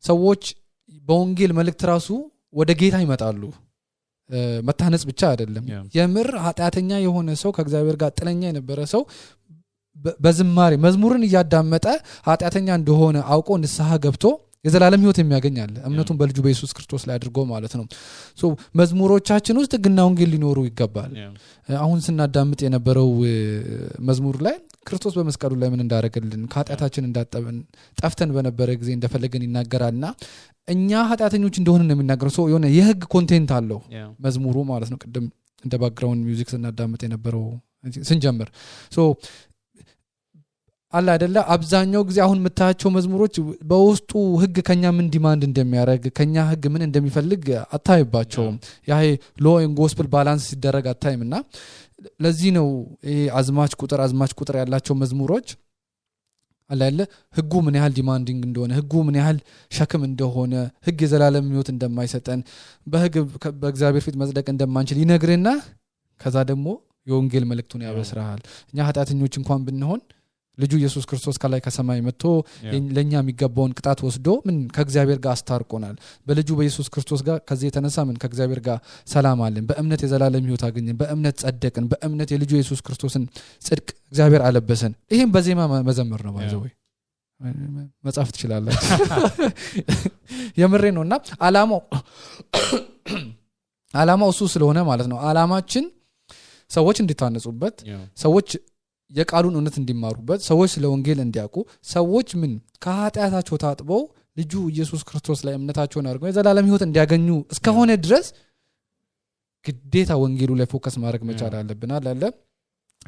ሰዎች በወንጌል መልእክት ራሱ ወደ ጌታ ይመጣሉ መታነጽ ብቻ አይደለም የምር ኃጢአተኛ የሆነ ሰው ከእግዚአብሔር ጋር ጥለኛ የነበረ ሰው በዝማሬ መዝሙርን ያዳመጠ ኃጢአተኛ እንደሆነ አውቆ ንስሐ ገብቶ የዘላለም ህይወት የሚያገኝ አለ እምነቱን በልጁ በኢየሱስ ክርስቶስ ላይ አድርጎ ማለት ነው ሶ መዝሙሮቻችን ውስጥ ህግና ወንጌል ሊኖሩ ይገባል አሁን ስናዳምጥ የነበረው መዝሙር ላይ ክርስቶስ በመስቀሉ ላይ ምን እንዳደረገልን ከኃጢአታችን እንዳጠበን ጠፍተን በነበረ ጊዜ እንደፈለገን ይናገራልና እኛ ኃጢአተኞች እንደሆነ ነው የሚናገረው ሶ የሆነ የህግ ኮንቴንት አለው መዝሙሩ ማለት ነው ቅድም እንደ ባክግራውንድ ሚውዚክ ስናዳምጥ የነበረው ስንጀምር ሶ አላ አይደለ አብዛኛው ጊዜ አሁን መታቸው መዝሙሮች በውስጡ ህግ ከኛ ምን ዲማንድ እንደሚያደርግ ከኛ ህግ ምን እንደሚፈልግ አታይባቸውም ያ ሎ ኤንድ ጎስፔል ባላንስ ሲደረግ አታይምና ለዚህ ነው ይሄ አዝማች ቁጥር ያላቸው መዝሙሮች አላ አይደለ ህጉ ምን ያህል ዲማንዲንግ እንደሆነ ህጉ ምን ያህል ሸክም እንደሆነ ህግ የዘላለም ህይወት እንደማይሰጠን በህግ በእግዚአብሔር ፊት መጽደቅ እንደማንችል ይነግርና ከዛ ደግሞ የወንጌል መልእክቱን ያበስራል እኛ ኃጢአተኞች እንኳን ብንሆን ልጁ ኢየሱስ ክርስቶስ ከላይ ከሰማይ መጥቶ ለኛ የሚገባውን ቅጣት ወስዶ ምን ከእግዚአብሔር ጋር አስታርቆናል በልጁ በኢየሱስ ክርስቶስ ጋር ከዚህ የተነሳ ምን ከእግዚአብሔር ጋር ሰላም አለን በእምነት የዘላለም ህይወት አገኘን በእምነት ጸደቅን በእምነት የልጁ ኢየሱስ ክርስቶስን ጽድቅ እግዚአብሔር አለበሰን ይሄን በዜማ መዘመር ነው ባይዘው መጻፍ ትችላላችሁ የምሬ ነውና አላማው እሱ ስለሆነ ማለት ነው አላማችን ሰዎች እንዲታነጹበት ሰዎች የቃሉን እውነት እንዲማሩበት ሰዎች ስለ ወንጌል እንዲያውቁ ሰዎች ምን ከኃጢአታቸው ታጥበው ልጁ ኢየሱስ ክርስቶስ ላይ እምነታቸውን አድርገው የዘላለም ህይወት እንዲያገኙ እስከሆነ ድረስ ግዴታ ወንጌሉ ላይ ፎከስ ማድረግ መቻል አለብን አለ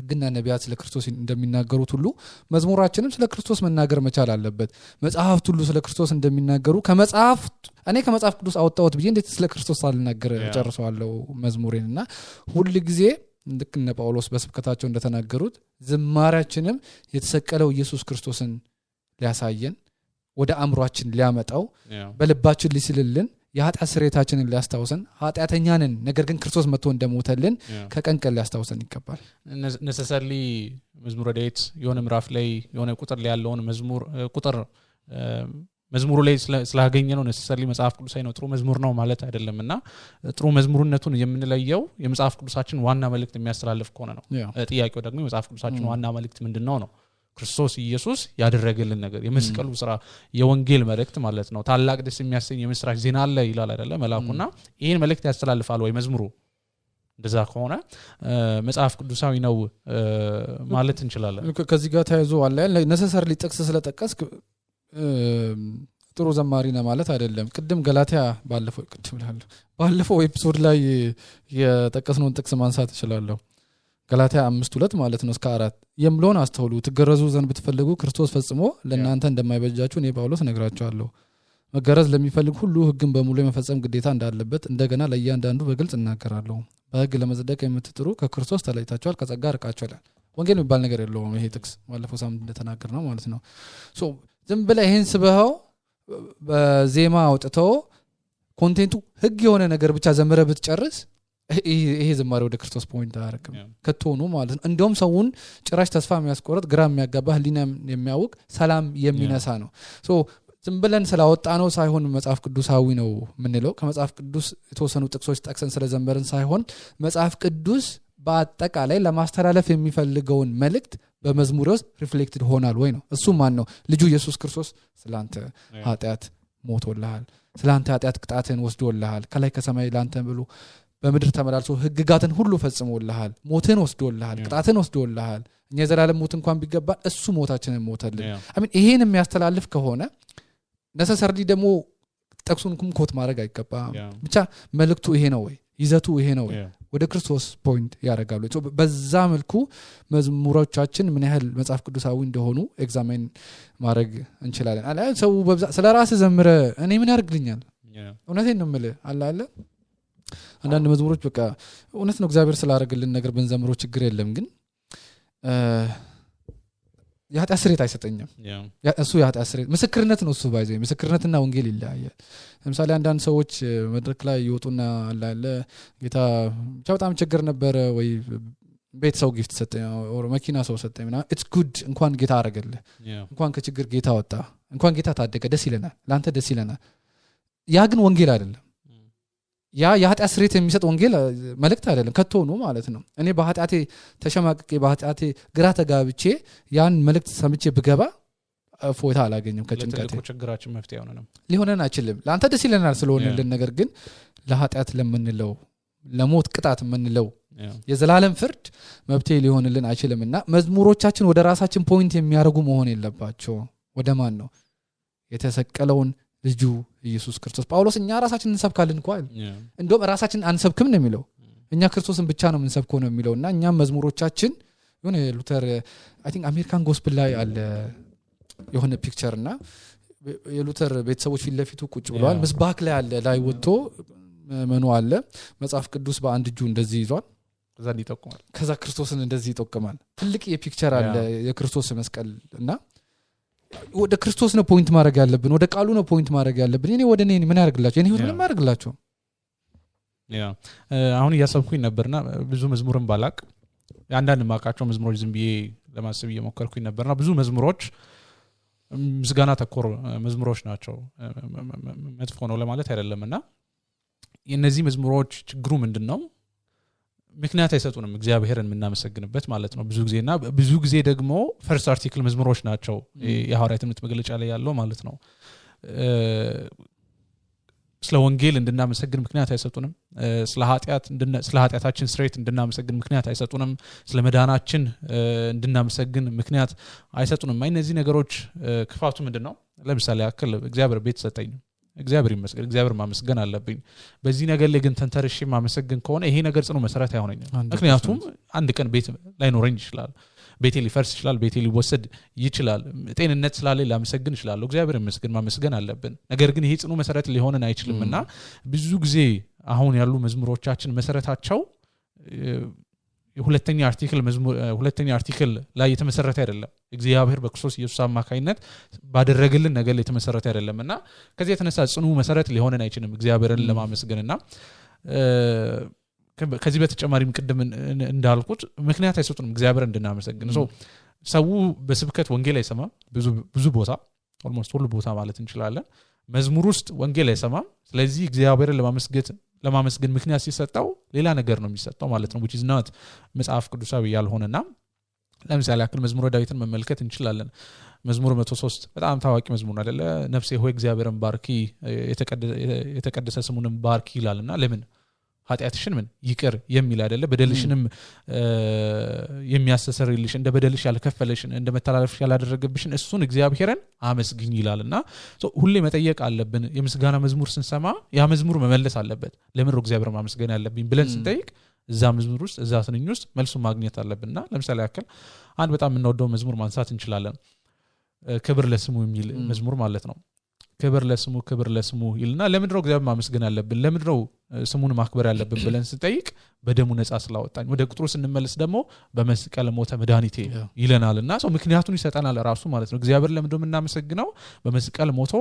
ግና ነቢያት ስለ ክርስቶስ እንደሚናገሩት ሁሉ መዝሙራችንም ስለ ክርስቶስ መናገር መቻል አለበት መጽሐፍት ሁሉ ስለ ክርስቶስ እንደሚናገሩ እኔ ከመጽሐፍ ቅዱስ አወጣሁት ብዬ እንዴት ስለ ክርስቶስ አልናገር ጨርሰዋለሁ መዝሙሬንና ሁሉ ጊዜ ልክ እነ ጳውሎስ በስብከታቸው እንደተናገሩት ዝማሬያችንም የተሰቀለው ኢየሱስ ክርስቶስን ሊያሳየን ወደ አእምሮአችን ሊያመጣው በልባችን ሊስልልን የኃጢአት ስርየታችንን ሊያስታውሰን ኃጢአተኛ ነን ነገር ግን ክርስቶስ መጥቶ እንደሞተልን ከቀን ቀን ሊያስታውሰን ይገባል ነሰሰሊ መዝሙረ ዳዊት የሆነ ምዕራፍ ላይ የሆነ ቁጥር ላይ ያለውን መዝሙሩ ላይ ስላገኘ ነው ነሰሰሊ መጽሐፍ ቅዱሳዊ ነው ጥሩ መዝሙር ነው ማለት አይደለምና ጥሩ መዝሙርነቱን የምንለየው የመጽሐፍ ቅዱሳችን ዋና መልእክት የሚያስተላልፍ ከሆነ ነው ጥያቄው ደግሞ የመጽሐፍ ቅዱሳችን ዋና መልእክት ምንድነው ነው ክርስቶስ ኢየሱስ ያደረገልን ነገር የመስቀሉ ስራ የወንጌል መልእክት ማለት ነው ታላቅ ደስ የሚያሰኝ የምስራች ዜና አለ ይላል አይደለ መላኩና ይሄን መልእክት ያስተላልፋል ወይ መዝሙሩ እንደዛ ከሆነ መጽሐፍ ቅዱሳዊ ነው ማለት እንችላለን ከዚህ ጋር ተያይዞ አለ ነሰሰርሊ ጥቅስ ስለጠቀስክ ጥሩ ዘማሪ ነው ማለት አይደለም ቅድም ገላትያ ባለፈው ኤፒሶድ ላይ የጠቀስነውን ጥቅስ ማንሳት እችላለሁ ገላትያ 5:2 ማለት ነው እስከ 4 የምሎን አስተውሉ ትገረዙ ዘንድ ብትፈልጉ ክርስቶስ ፈጽሞ ለእናንተ እንደማይበጃችሁ እኔ ጳውሎስ ነግራችኋለሁ መገረዝ ለሚፈልግ ሁሉ ህግን በሙሉ የመፈጸም ግዴታ እንዳለበት እንደገና ለእያንዳንዱ በግልጽ እናገራለሁ በህግ ለመጽደቅ የምትጥሩ ከክርስቶስ ተለይታችኋል ከጸጋ ርቃችኋል ወንጌል የሚባል ነገር የለውም ይሄ ጥቅስ ባለፈው ሳምንት እንደተናገር ነው ማለት ነው ሶ ዝም ብለህ ይሄን ስበኸው በዜማ አውጥተው ኮንቴንቱ ህግ የሆነ ነገር ብቻ ዘመረ ብትጨርስ ይሄ ዝማሬ ወደ ክርስቶስ ፖይንት አያረክም ከቶኑ ማለት ነው እንደውም ሰውን ጭራሽ ተስፋ የሚያስቆርጥ ግራ የሚያጋባ ህሊና የሚያውቅ ሰላም የሚነሳ ነው ሶ ዝም ብለን ስላወጣ ነው ሳይሆን መጽሐፍ ቅዱሳዊ ነው ምንለው ከመጽሐፍ ቅዱስ የተወሰኑ ጥቅሶች ጠቅሰን ስለዘመርን ሳይሆን መጽሐፍ ቅዱስ በአጠቃላይ ለማስተላለፍ የሚፈልገውን መልእክት በመዝሙር ውስጥ ሪፍሌክትድ ሆናል ወይ ነው እሱ ማን ነው ልጁ ኢየሱስ ክርስቶስ ስላንተ ኃጢአት ሞቶልሃል ስላንተ ኃጢአት ቅጣትን ወስዶልሃል ከላይ ከሰማይ ላንተ ብሎ በመድር ተመላልሶ ህግጋትን ሁሉ ፈጽሞልሃል ሞትን ወስዶልሃል ቅጣትን ወስዶልሃል እኛ የዘላለም ሞት እንኳን ቢገባ እሱ ሞታችንን ሞተልን አሜን ይሄን የሚያስተላልፍ ከሆነ ነሰሰርሊ ደግሞ ጠቅሱን ኮት ማድረግ አይገባም ብቻ መልእክቱ ይሄ ነው ወይ ይዘቱ ይሄ ነው ወይ ወደ ክርስቶስ ፖይንት ያረጋሉ በዛ መልኩ መዝሙሮቻችን ምን ያህል መጽሐፍ ቅዱሳዊ እንደሆኑ ኤግዛሚን ማድረግ እንችላለን አለ ሰው ስለራስ ዘምረ እኔ ምን ያርግልኛል እውነቴን ነው የምልህ አለ አንዳንድ መዝሙሮች በቃ እውነት ነው እግዚአብሔር ስላደረገልን ነገር በእንዘምሮ ችግር የለም ግን የኃጢአት ስርየት አይሰጠኝም እሱ የኃጢአት ስርየት ምስክርነት ነው እሱ ባይዘ ምስክርነትና ወንጌል ይለያያል ለምሳሌ አንዳንድ ሰዎች መድረክ ላይ ይወጡና አለ ጌታ በጣም ችግር ነበር ወይ ቤት ሰው ጊፍት ሰጠኝ ኦር መኪና ሰው ሰጠኝና ኢትስ ጉድ እንኳን ጌታ አረጋለህ እንኳን ከችግር ጌታ ወጣ እንኳን ጌታ ታደገ ደስ ይለናል ላንተ ደስ ይለናል ያ ግን ወንጌል አይደለም ያ የኃጢአት ስርየት የሚሰጥ ወንጌል መልእክት አይደለም ከቶኑ ማለት ነው እኔ በኃጢአቴ ተሸማቅቄ በኃጢአቴ ግራ ተጋብቼ ያን መልእክት ሰምቼ ብገባ ፎታ አላገኘም ከጭንቀት ለትልቁ ችግራችን መፍትሄ ሆነንም ሊሆነን አይችልም ለአንተ ደስ ይለናል ስለሆነልን ነገር ግን ለኃጢአት ለምንለው ለሞት ቅጣት ምንለው የዘላለም ፍርድ መብቴ ሊሆንልን አይችልምና መዝሙሮቻችን ወደ ራሳችን ፖይንት የሚያደርጉ መሆን የለባቸው ወደ ማን ነው የተሰቀለውን ልጁ ኢየሱስ ክርስቶስ ጳውሎስ እኛ ራሳችንን እንሰብካለን እንኳን እንደውም ራሳችንን አንሰብክም ነው የሚለው እኛ ክርስቶስን ብቻ ነው የምንሰብከው ነው የሚለውና እኛ መዝሙሮቻችን የሆነ ሉተር አይ ቲንክ አሜሪካን ጎስፕል ላይ አለ የሆነ ፒክቸርና የሉተር ቤተሰቦች ፊት ለፊቱ ቁጭ ብለዋል ምስባክ ላይ አለ ላይ ወጥቶ መኑ አለ መጽሐፍ ቅዱስ በአንድ እጁ እንደዚህ ይዟል ከዛ ክርስቶስን እንደዚህ ይጠቀማል ትልቅ የፒክቸር አለ የክርስቶስ መስቀልና ወደ ክርስቶስ ነው ፖይንት ማድረግ ያለብን ወደ ቃሉ ነው ፖይንት ማድረግ ያለብን እኔ ወደ እኔ ምን ያርግላችሁ እኔ ምን ያርግላችሁ አሁን ያሰብኩኝ ነበርና ብዙ መዝሙርን ባላቅ አንዳንድ ማቃቸው መዝሙሮች ዝም ብዬ ለማሰብ እየሞከርኩኝ ነበርና ብዙ መዝሙሮች ምስጋና ተኮር መዝሙሮች ናቸው መጥፎ ነው ለማለት አይደለምና የነዚህ መዝሙሮች ችግሩ ምንድነው ምክንያት አይሰጡንም እግዚአብሔርን የምናመሰግንበት ማለት ነው ብዙ ጊዜ ደግሞ ፈርስት አርቲክል መዝሙሮች ናቸው የሐዋርያት ትምህርት መግለጫ ላይ ያለው ማለት ነው ስለ ወንጌል እንድናመሰግን ምክንያት አይሰጡንም ስለ ኃጢአታችን ስትሬት እንድናመሰግን ምክንያት አይሰጡንም ስለ መዳናችን እንድናመሰግን ምክንያት አይሰጡንም እነዚህ ነገሮች ክፋቱ ምንድነው ለምሳሌ ያክል እግዚአብሔር ቤት ሰጠኝ እግዚአብሔር ይመስገን እግዚአብሔር ማመስገን አለብኝ በዚህ ነገር ላይ ግን ተንተርሼ ማመስገን ከሆነ ይሄ ነገር ጽኑ መሰረት አይሆነኝም ምክንያቱም አንድ ቀን ቤት ላይኖረኝ ይችላል ቤቴ ሊፈርስ ይችላል ቤቴ ሊወሰድ ይችላል ጤንነት ስላለ ላመሰግን ይችላል እግዚአብሔር ይመስገን ማመስገን አለብን ነገር ግን ይሄ ጽኑ መሰረት ሊሆነን አይችልምና ብዙ ጊዜ አሁን ያሉ መዝሙሮቻችን መሰረታቸው ሁለተኛ አርቲክል ላይ የተመሰረተ አይደለም እግዚአብሔር በክርስቶስ ኢየሱስ አማካይነት ባደረገልን ነገር ላይ የተመሰረተ አይደለምና ከዚህ የተነሳ ጽኑ መሰረት ሊሆነን አይችልም እግዚአብሔርን ለማመስገንና ከዚህ በተጨማሪም ቅድም እንዳልኩት ምክንያት አይሰጡንም እግዚአብሔር እንድናመሰግን ሰው በስብከት ወንጌል አይሰማም ብዙ ቦታ ኦልሞስት ሁሉ ቦታ ማለት እንችላለን መዝሙር ውስጥ ወንጌል አይሰማም ስለዚህ እግዚአብሔርን ለማመስገን ምክንያት ሲሰጣው ሌላ ነገር ነው የሚሰጣው ማለት ነው which is not መጽሐፍ ቅዱሳዊ ያልሆነና ለምሳሌ ያክል መዝሙረ ዳዊትን መመልከት እንችላለን መዝሙር 103 በጣም ታዋቂ መዝሙር አይደለ ነፍሴ ሆይ እግዚአብሔርን ባርኪ የተቀደሰ ስሙንም ባርኪ ይላልና ለምን ኃጢአትሽን ምን ይቅር የሚል አይደለ በደልሽንም የሚያስተሰርይልሽ እንደ በደልሽ ያልከፈለሽን እንደ መተላለፍሽ ያላደረገብሽን እሱን እግዚአብሔርን አመስግኝ ይላልና ሁሌ መጠየቅ አለብን የምስጋና መዝሙር ስንሰማ ያ መዝሙር መመለስ አለበት ለምን ነው እግዚአብሔርን ማመስገን ያለብኝ ብለን ስንጠይቅ እዛ መዝሙር ውስጥ እዛ ስንኝ ውስጥ መልሱን ማግኘት አለብንና ለምሳሌ ያክል አንድ በጣም የምንወደው መዝሙር ማንሳት እንችላለን ክብር ለስሙ የሚል መዝሙር ማለት ነው ክብር ለስሙ ይልና ለምን ነው እግዚአብሔር ማመስገን ያለብን ለምን ነው ስሙን ማክበር ያለብን ብለን ስንጠይቅ በደሙ ነፃ ስላወጣኝ ወደ ቁጥሩ ስንመለስ ደግሞ በመስቀል ሞተ መድኃኒቴ ይለናልና ምክንያቱን ይሰጠናል ራሱ ማለት ነው እግዚአብሔር ለምን ነው እናመሰግነው በመስቀል ሞቶ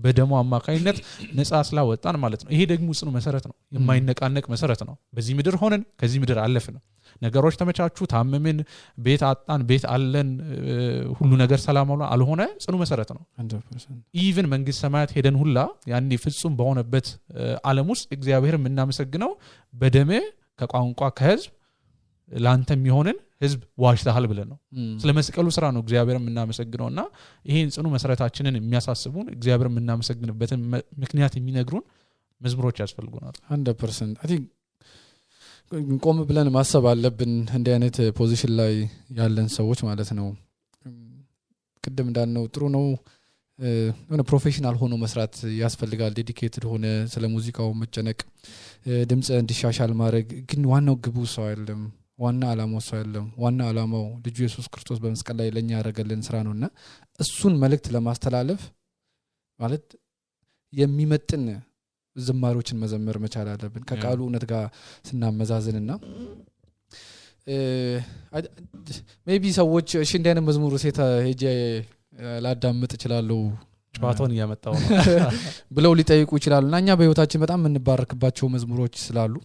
በደሙ አማካይነት ነፃ ስላወጣን ማለት ነው ይሄ ደግሞ ጽኑ መሰረት ነው የማይነቃነቅ መሰረት ነው በዚህ ምድር ሆነን ከዚህ ምድር አለፍን ነገሮች ተመቻቹ ታመምን ቤት አጣን ቤት አለን ሁሉ ነገር ሰላም አልሆነ ጽኑ መሰረት ነው 100% ኢቭን መንግስት ሰማያት ሄደን ሁላ ያኔ ፍጹም በሆነበት ዓለም ውስጥ እግዚአብሔር የምናመሰግነው በደም ከቋንቋ ከህዝብ ላንተ የሚሆንን ህዝብ ዋሽታል ብለን ነው ስለመስቀሉ ስራ ነው እግዚአብሔር የምናመሰግነውና ይሄን ጽኑ መሰረታችንን የሚያሳስቡን እግዚአብሔር የምናመሰግንበትን ምክንያት የሚነግሩን መዝሙሮች ያስፈልጉናል 100% አይ ቲንክ ቆም ብለን ማሰብ አለብን እንደ አይነት ፖዚሽን ላይ ያለን ሰዎች ማለት ነው ቅድም እንዳልነው ጥሩ ነው የሆነ ፕሮፌሽናል ሆኖ መስራት ያስፈልጋል ዴዲኬትድ ሆነ ስለ ሙዚቃው መጨነቅ ድምጽ እንዲሻሻል ማድረግ ግን ዋናው ግቡ ሰው አይደለም ዋና ዓላማው ሰው አይደለም ዋና ዓላማው ልጁ ኢየሱስ ክርስቶስ በመስቀል ላይ ለኛ ያደረገልን ስራ ነውና እሱን መልእክት ለማስተላለፍ ማለት የሚመጥን ዝማሬዎችን መዘመር መቻል አለብን ከቃሉ እውነት ጋር ስናመዛዝንና ሜቢ ሰዎች እሺ እንደነ መዝሙር ሴታ ሄጄ ላዳምጥ ይችላልው ጨዋታውን ያመጣው ነው ብለው ሊጠይቁ ይችላሉና እኛ በህይወታችን በጣም የምንባረክባቸው መዝሙሮች ስላሉ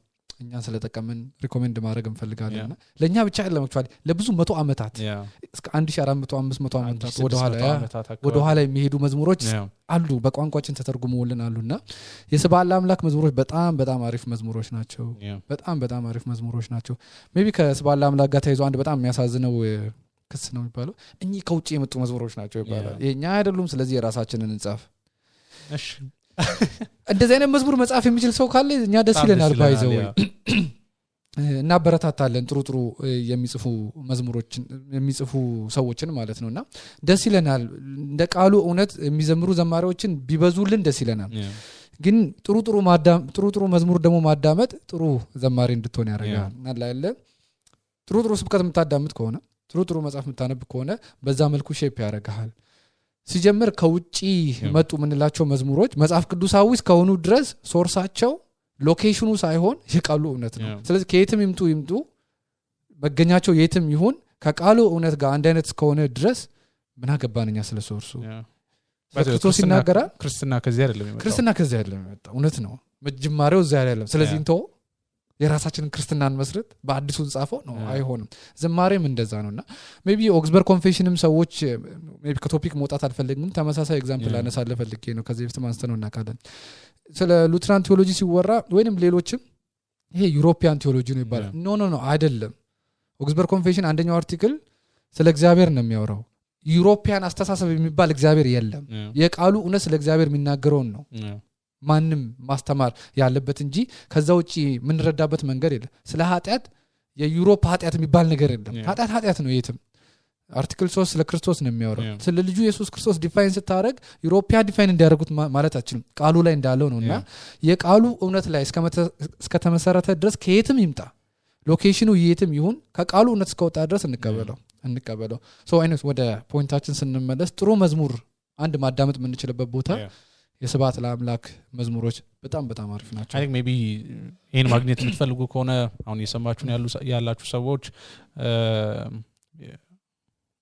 እኛ ስለተቀመን ሪኮሜንድ ማድረግ እንፈልጋለንና ለኛ ብቻ አይደለም አክቹአሊ ለብዙ 100 አመታት እስከ 1400 500 አመታት ወደ ኋላ የሚሄዱ መዝሙሮች አሉ በቋንቋችን ተተርጉመውልን አሉና የስብሐት አምላክ መዝሙሮች በጣም አሪፍ መዝሙሮች ናቸው በጣም አሪፍ መዝሙሮች ናቸው ሜቢ ከስብሐት አምላክ ጋር ተይዞ አንድ በጣም የሚያሳዝነው ክስ ነው የሚባለው እኚህ ከውጪ የመጡ መዝሙሮች ናቸው ይባላል የኛ አይደሉም ስለዚህ የራሳችንን እንጻፍ እሺ እንደዚህ አይነት መዝሙር መጻፍ የሚችል ሰው ካለ እኛ ደስ ይለናል ባይዘው እና በረታታለን ጥሩ የሚጽፉ መዝሙሮችን የሚጽፉ ሰዎችን ማለት ነውና ደስ ይለናል እንደ ቃሉ እውነት የሚዘምሩ ዘማሪዎችን ቢበዙልን ደስ ይለናል ግን ጥሩ መዝሙር ደግሞ ማዳመጥ ጥሩ ዘማሪ እንድትሆን ያደርጋል አላለ ጥሩ ስብከት የምታዳምጥ ከሆነ ጥሩ መጽሐፍ የምታነብ ከሆነ በዛ መልኩ ሼፕ ያደርጋል ሲጀምር ከውጪ መጡ ምንላቸው መዝሙሮች መጽሐፍ ቅዱሳዊ እስከሆኑ ድረስ ሶርሳቸው ሎኬሽኑ ሳይሆን የቃሉ እውነት ነው ስለዚህ ከየትም ይምጡ መገኛቸው የትም ይሁን ከቃሉ እውነት ጋር አንድ አይነት እስከሆነ ድረስ ምን አገባንኛ ስለ ሶርሱ ክርስቶስ ይናገራል ክርስትና ከዚህ አይደለም የመጣው እውነት ነው መጀመሪያው እዛ አይደለም ስለዚህ እንተው የራሳችንን ክርስትናን መስረት በአዲሱ ጻፈው ነው አይሆንም ዝማሬም እንደዛ ነውና ሜቢ ኦክስበርግ ኮንፌሽንም ሰዎች ሜቢ ከቶፒክ መውጣት አልፈልግም ተመሳሳይ ኤግዛምፕል አነሳለ ፈልጌ ነው ከዚህ በፊት ማንስተነው እናካለን ስለ ሉትራን ቴዎሎጂ ሲወራ ወይንም ሌሎችም ይሄ ዩሮፒያን ቴዎሎጂ ነው ይባላል ኖ አይደለም ኦክስበርግ ኮንፌሽን አንደኛው አርቲክል ስለ እግዚአብሔር ነው የሚያወራው ዩሮፒያን አስተሳሰብ የሚባል እግዚአብሔር የለም የቃሉ እውነት ስለ እግዚአብሔር የሚናገረው ነው ማንንም ማስተማር ያለበት እንጂ ከዛ ውጪ ምን ረዳበት መንገድ የለም ስለ ኃጢያት የዩሮፕ ኃጢያት የሚባል ነገር የለም ኃጢያት ነው የትም አርቲክል 3 ስለ ክርስቶስ ነው የሚያወራው ስለ ልጁ ኢየሱስ ክርስቶስ ዲፋይን ስታረግ ዩሮፒያ ዲፋይን እንዲያደርጉት ማለት አችልም ቃሉ ላይ እንዳለው ነውና የቃሉ እውነት ላይ እስከ ተመሰረተ ድረስ ከየትም ይምጣ ሎኬሽኑ የትም ይሁን ከቃሉ እውነት እስከወጣ ድረስ እንቀበለው ሶ አይነት ወደ ፖይንታችን ስንመለስ ጥሩ መዝሙር አንድ ማዳመጥ የምንችልበት ቦታ የስብሐት ለአምላክ መዝሙሮች በጣም አሪፍ ናቸው አይ ቲንክ ሜቢ ይሄን ማግኘት የምትፈልጉ ከሆነ አሁን እየሰማችሁ ያላችሁ ሰዎች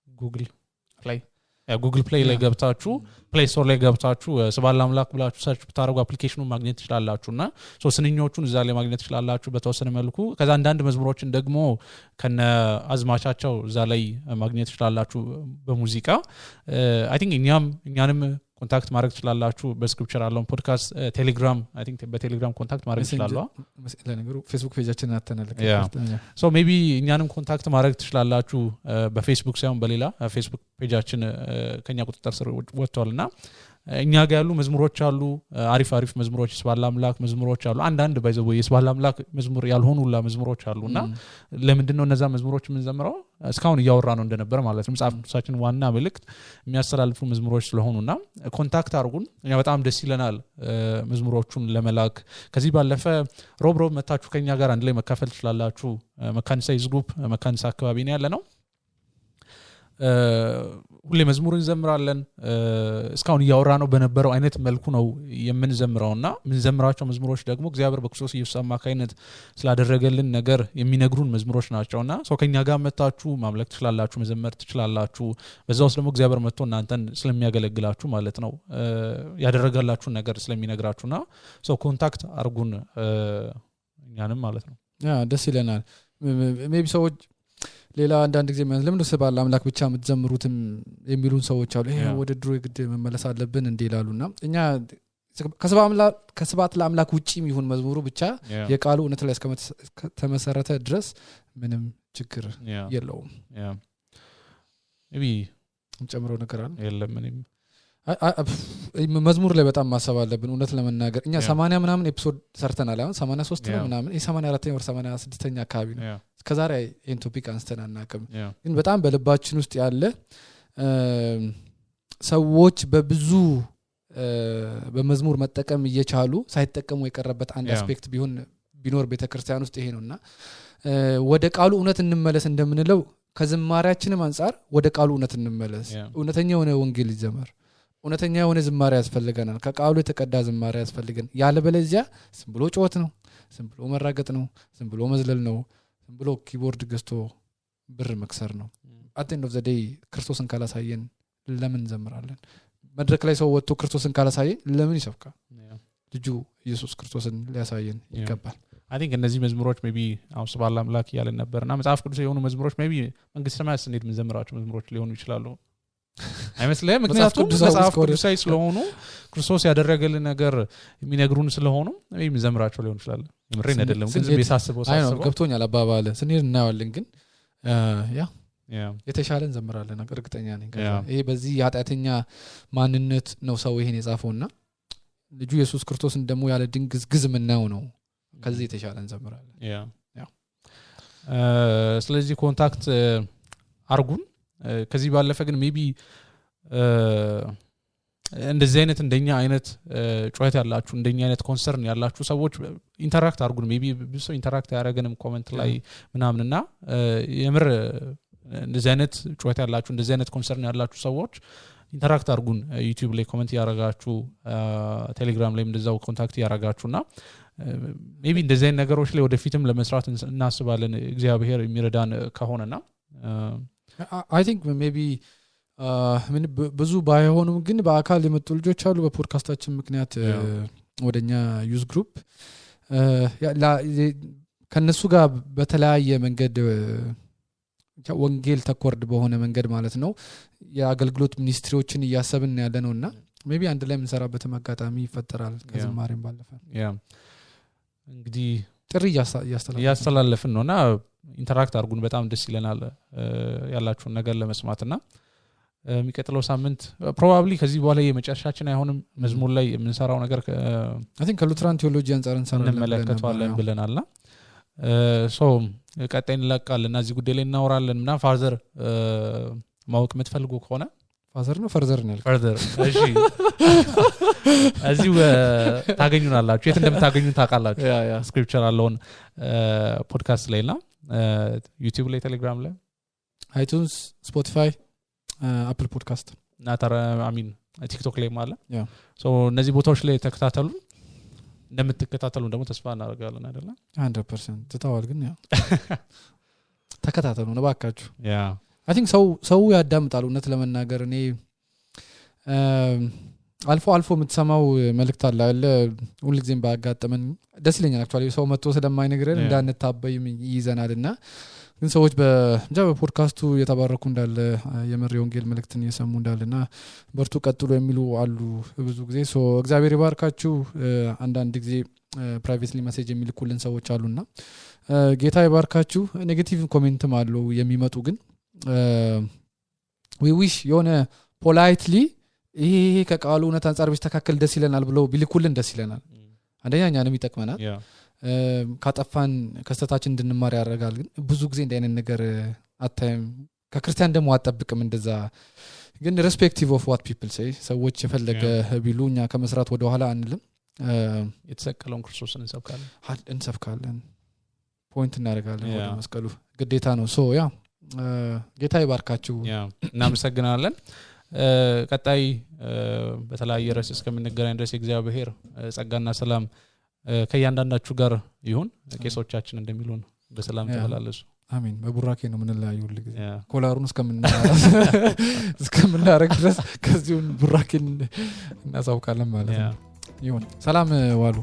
ጉግል ፕሌይ ላይ ገብታችሁ ፕሌይ ስቶር ላይ ገብታችሁ ስብሐት ለአምላክ ብላችሁ ሰርች ብታረጉ አፕሊኬሽኑን ማግኘት ትችላላችሁና ስንኞቹን እዛ ላይ ማግኘት ትችላላችሁ በተወሰነ መልኩ ከዛ አንዳንድ መዝሙሮችን ደግሞ ከነ አዝማቻቸው እዛ ላይ ማግኘት ትችላላችሁ በሙዚቃ አይ ቲንክ እኛንም ኮንታክት ማድረግ ትችላላችሁ በስክሪፕቸር አለውን ፖድካስት ቴሌግራም አይ ቲንክ በቴሌግራም ኮንታክት ማድረግ ትችላላችሁ ለነገሩ ፌስቡክ ፔጃችንን አተናለከ ሶ ሜቢ እኛንም ኮንታክት ማድረግ ትችላላችሁ በፌስቡክ ሳይሆን በሌላ ፌስቡክ ፔጃችን ከኛ ቁጥጥር ስር ወጥቷልና እኛ ጋር ያሉ መዝሙሮች አሉ አሪፍ መዝሙሮች ስብሐት ለአምላክ መዝሙሮች አሉ አንዳንድ ባይዘው የስብሐት ለአምላክ መዝሙር ያልሆኑላ መዝሙሮች አሉና ለምንድነው እነዛ መዝሙሮች ምን ዘምረው እስካሁን እያወራ ነው እንደነበር ማለት ነው መጽሐፍ ቅዱሳችን ዋና መልእክት የሚያስተላልፉ መዝሙሮች ስለሆኑና ኮንታክት አድርጉን እኛ በጣም ደስ ይለናል መዝሙሮቹን ለመላክ ከዚህ ባለፈ ሮብ መታችሁ ከኛ ጋር አንድ ላይ መካፈል ትችላላችሁ መካኒሳ ግሩፕ መካኒሳ አካባቢ ነው ያለነው ሁሌ መዝሙር እንዘምራለን እስካሁን እያወራ ነው በነበረው አይነት መልኩ ነው የምንዘምረውና ምንዘምራቸው መዝሙሮች ደግሞ እግዚአብሔር በክርስቶስ ኢየሱስ አማካይነት ስላደረገልን ነገር የሚነግሩን መዝሙሮች ናቸውና ከኛ ጋር መጣችሁ ማምለክ ትችላላችሁ መዘመር ትችላላችሁ በዛውስ ደግሞ እግዚአብሔር መጥቶ እናንተን ስለሚያገለግላችሁ ማለት ነው ያደረጋላችሁ ነገር ስለሚነግራችሁና ኮንታክት አርጉን እኛንም ማለት ነው ደስ ይለናል ሜቢ ሰዎች ሌላ አንዳንድ ጊዜ ለምን ስብሐት ለአምላክ ብቻ የምትዘምሩትም የሚሉን ሰዎች አሉ ይሄ ወደ ድሮ ግድ መመለስ አለብን እንደ ይላሉና እኛ ከስብሐት ለአምላክ ውጪም ይሁን መዝሙሩ ብቻ የቃሉ እውነት ላይ እስከተመሰረተ ድረስ ምንም ችግር የለውም maybe ጨምሮ ነገር አለ የለም ምንም መዝሙር ላይ በጣም ማሰብ አለብን እውነት ለመናገር እኛ 80 ምናምን ኤፒሶድ ሰርተናል አሁን 83 ነው ምናምን 84ኛ ወር 86ኛ አካባቢ ነው እስከዛሬ ይሄን ቶፒክ አንስተን አናውቅም ግን በጣም በልባችን ውስጥ ያለ ሰዎች በብዙ በመዝሙር መጠቀም እየቻሉ ሳይጠቀሙ የቀረበት አንድ አስፔክት ቢኖር ቤተክርስቲያን ውስጥ ይሄ ነውና ወደ ቃሉ እውነት እንመለስ እንደምንለው ከዝማሬያችንም አንፃር ወደ ቃሉ እውነት እንመለስ እውነተኛ የሆነ ወንጌል ይዘመር እውነተኛ የሆነ ዝማሬ ያስፈልገናል ከቃሉ የተቀዳ ዝማሬ ያስፈልገን ያለበለዚያ ዝም ብሎ ጮት ነው ዝም ብሎ መራገጥ ነው ዝም ብሎ መዝለል ነው ዝም ብሎ ኪቦርድ ገዝቶ ብር መክሰር ነው at the end of the day ክርስቶስን ካላሳየን ለምን ዘምራለን መድረክ ላይ ሰው ወጥቶ ክርስቶስን ካላሳየን ለምን ይሰብካል ልጁ ኢየሱስ ክርስቶስን ሊያሳየን ይገባል I think እነዚህ መዝሙሮች maybe ስብሐት ለአምላክ ያለን ነበርና መጽሐፍ ቅዱስ የሆኑ መዝሙሮች maybe መንግስተ ሰማያት እንዴት ምን ዘምራቸው መዝሙሮች ሊሆኑ ይችላሉ አይመስልም ምክንያቱም መጽሐፍ ቅዱሳዊ ስለሆኑ ክርስቶስ ያደረገልን ነገር የሚነግሩን ስለሆኑ maybe ዘምራቸው ሊሆን ይችላል ምሬን አይደለም ግን ዝም በሳስበው ገብቶኛል አባባለ ስንሄድ እናያለን ግን የተሻለ እንዘምራለን እርግጠኛ ነኝ ይሄ በዚህ ኃጢአተኛ ማንነት ነው ሰው ይሄን የጻፈውና ልጁ ኢየሱስ ክርስቶስን ደግሞ ያለ ድንግዝግዝ ምናው ነው ከዚህ የተሻለ እንዘምራለን ስለዚህ ኮንታክት አርጉን ከዚህ ባለፈ ግን ሜቢ እንደዚህ አይነት እንደኛ አይነት ጩኸት ያላችሁ እንደኛ አይነት ኮንሰርን ያላችሁ ሰዎች ኢንተራክት አርጉን ሜቢ ብዙ ኢንተራክት ያደረገንም ኮሜንት ላይ ምናምንና የምር እንደዚህ አይነት ጩኸት ያላችሁ እንደዚህ አይነት ኮንሰርን ያላችሁ ሰዎች ኢንተራክት አርጉን ዩቲዩብ ላይ ኮሜንት ያረጋችሁ ቴሌግራም ላይ እንደዛው ኮንታክት ያረጋችሁና ሜቢ እንደዚህ አይነት ነገሮች ላይ ወደፊትም ለመስራት እናስባለን እግዚአብሔር የሚረዳን ከሆነና I think maybe ምን ብዙ ባይሆኑም ግን በአካል የመጡ ልጆች አሉ በፖድካስታችን ምክንያት ወደኛ ዩዝ ግሩፕ ከነሱ ጋር በተለያየ መንገድ ወንጌል ተኮርድ በሆነ መንገድ ማለት ነው የአገልግሎት ሚኒስትሪዎችን እያሰብን ያለነውና ሜቢ አንድ ላይ እንሰራበት አጋጣሚ ይፈጠራል ከዝማሬም ባለፈ እንግዲህ ጥሪ ያስተላለፍን ነውና ኢንተራክት አርጉን በጣም ደስ ይለናል ያላችሁን ነገር ለመስማትና የሚቀጥለው ሳምንት ፕሮባብሊ ከዚህ በኋላ የመጨረሻችን አይሆንም መዝሙር ላይ የምንሰራው ነገር I think ከሉትራን ቴዎሎጂ አንፃር እንመለከተዋለን ብለናልና ሶ ቀጣይ እንለቃለንና እዚህ ጉዳይ ላይ እናወራለን እና ፋዘር ማወቅ የምትፈልጉ ከሆነ ፋዘር ነው ፈርዘር ነው ፈርዘር እሺ እዚሁ ታገኙናላችሁ የት እንደምታገኙን ታውቃላችሁ ስክሪፕቸር አለውን ፖድካስት ላይና ዩቲዩብ ላይ ቴሌግራም ላይ iTunes Spotify አፕል ፖድካስት ናታራ አሚን ቲክቶክ ላይ ማለት ሶ እነዚህ ቦታዎች ላይ ተከታተሉ እንደምትከታተሉ ደግሞ ተስፋ እናደርጋለን አይደል 100% ተታዋል ግን ያው ተከታተሉ ነው ባካችሁ I think ሰው ያዳምጣል እውነት ለመናገር እኔ አልፎ የምትሰማው መልእክት አለ ሁሉ ጊዜም ባጋጠመን ደስ ይለኛል አክቹአሊ ሰው መጥቶ ስለማይነግረን እንዳንታበይ ይዘናልና ግን ሰዎች በፖድካስቱ የተባረኩ እንዳለ የመሪ ወንጌል መልእክትን እየሰሙ እንዳለና በርቱ ቀጥሎ የሚሉ አሉ ብዙ ጊዜ ሶ እግዚአብሔር ይባርካችሁ አንዳንድ ጊዜ ፕራይቬትሊ ሜሴጅ የሚልኩልን ሰዎች አሉና ጌታ ይባርካችሁ ኔጌቲቭ ኮሜንትም አለው የሚመጡ ግን we wish የሆነ politely ይሄ ከቃሉ እውነት አንፃር ቢስተካከል ደስ ይለናል ብለው ቢልኩልን ደስ ይለናል አንደኛ እኛንም ይጠቅመናል ካጠፋን ከስተታችን እንድንማር ያደርጋል ግን ብዙ ጊዜ እንደ አይነት ነገር አታይም ከክርስቲያን ደግሞ አጠብቅም እንደዛ ግን respective of what people say ሰዎች የፈለገ ቢሉኛ ከመስራት ወደ ኋላ አንልም የተሰቀለውን ክርስቶስን እንሰብካለን ፖይንት እናደርጋለን ወደ መስቀሉ ግዴታ ነው ሶ ያ ጌታ ይባርካችሁ እናመሰግናለን ቀጣይ በተለያየ ርዕስ እስከምንገናኝ ድረስ እግዚአብሔር ጸጋና ሰላም ከያንዳንዳችሁ ጋር ይሁን ቄሶቻችን እንደሚሉን በሰላም ተመላለሱ አሜን በቡራኬ ነው ምንላዩ ሁሉ ጊዜ ኮላሩን እስከምናረግ ድረስ ከዚሁን ቡራኬን እናሳውቃለን ማለት ነው ይሁን ሰላም ዋሉ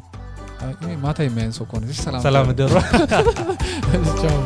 ማታ የሚያንሰው ኮን ሰላም ደሮ ቻው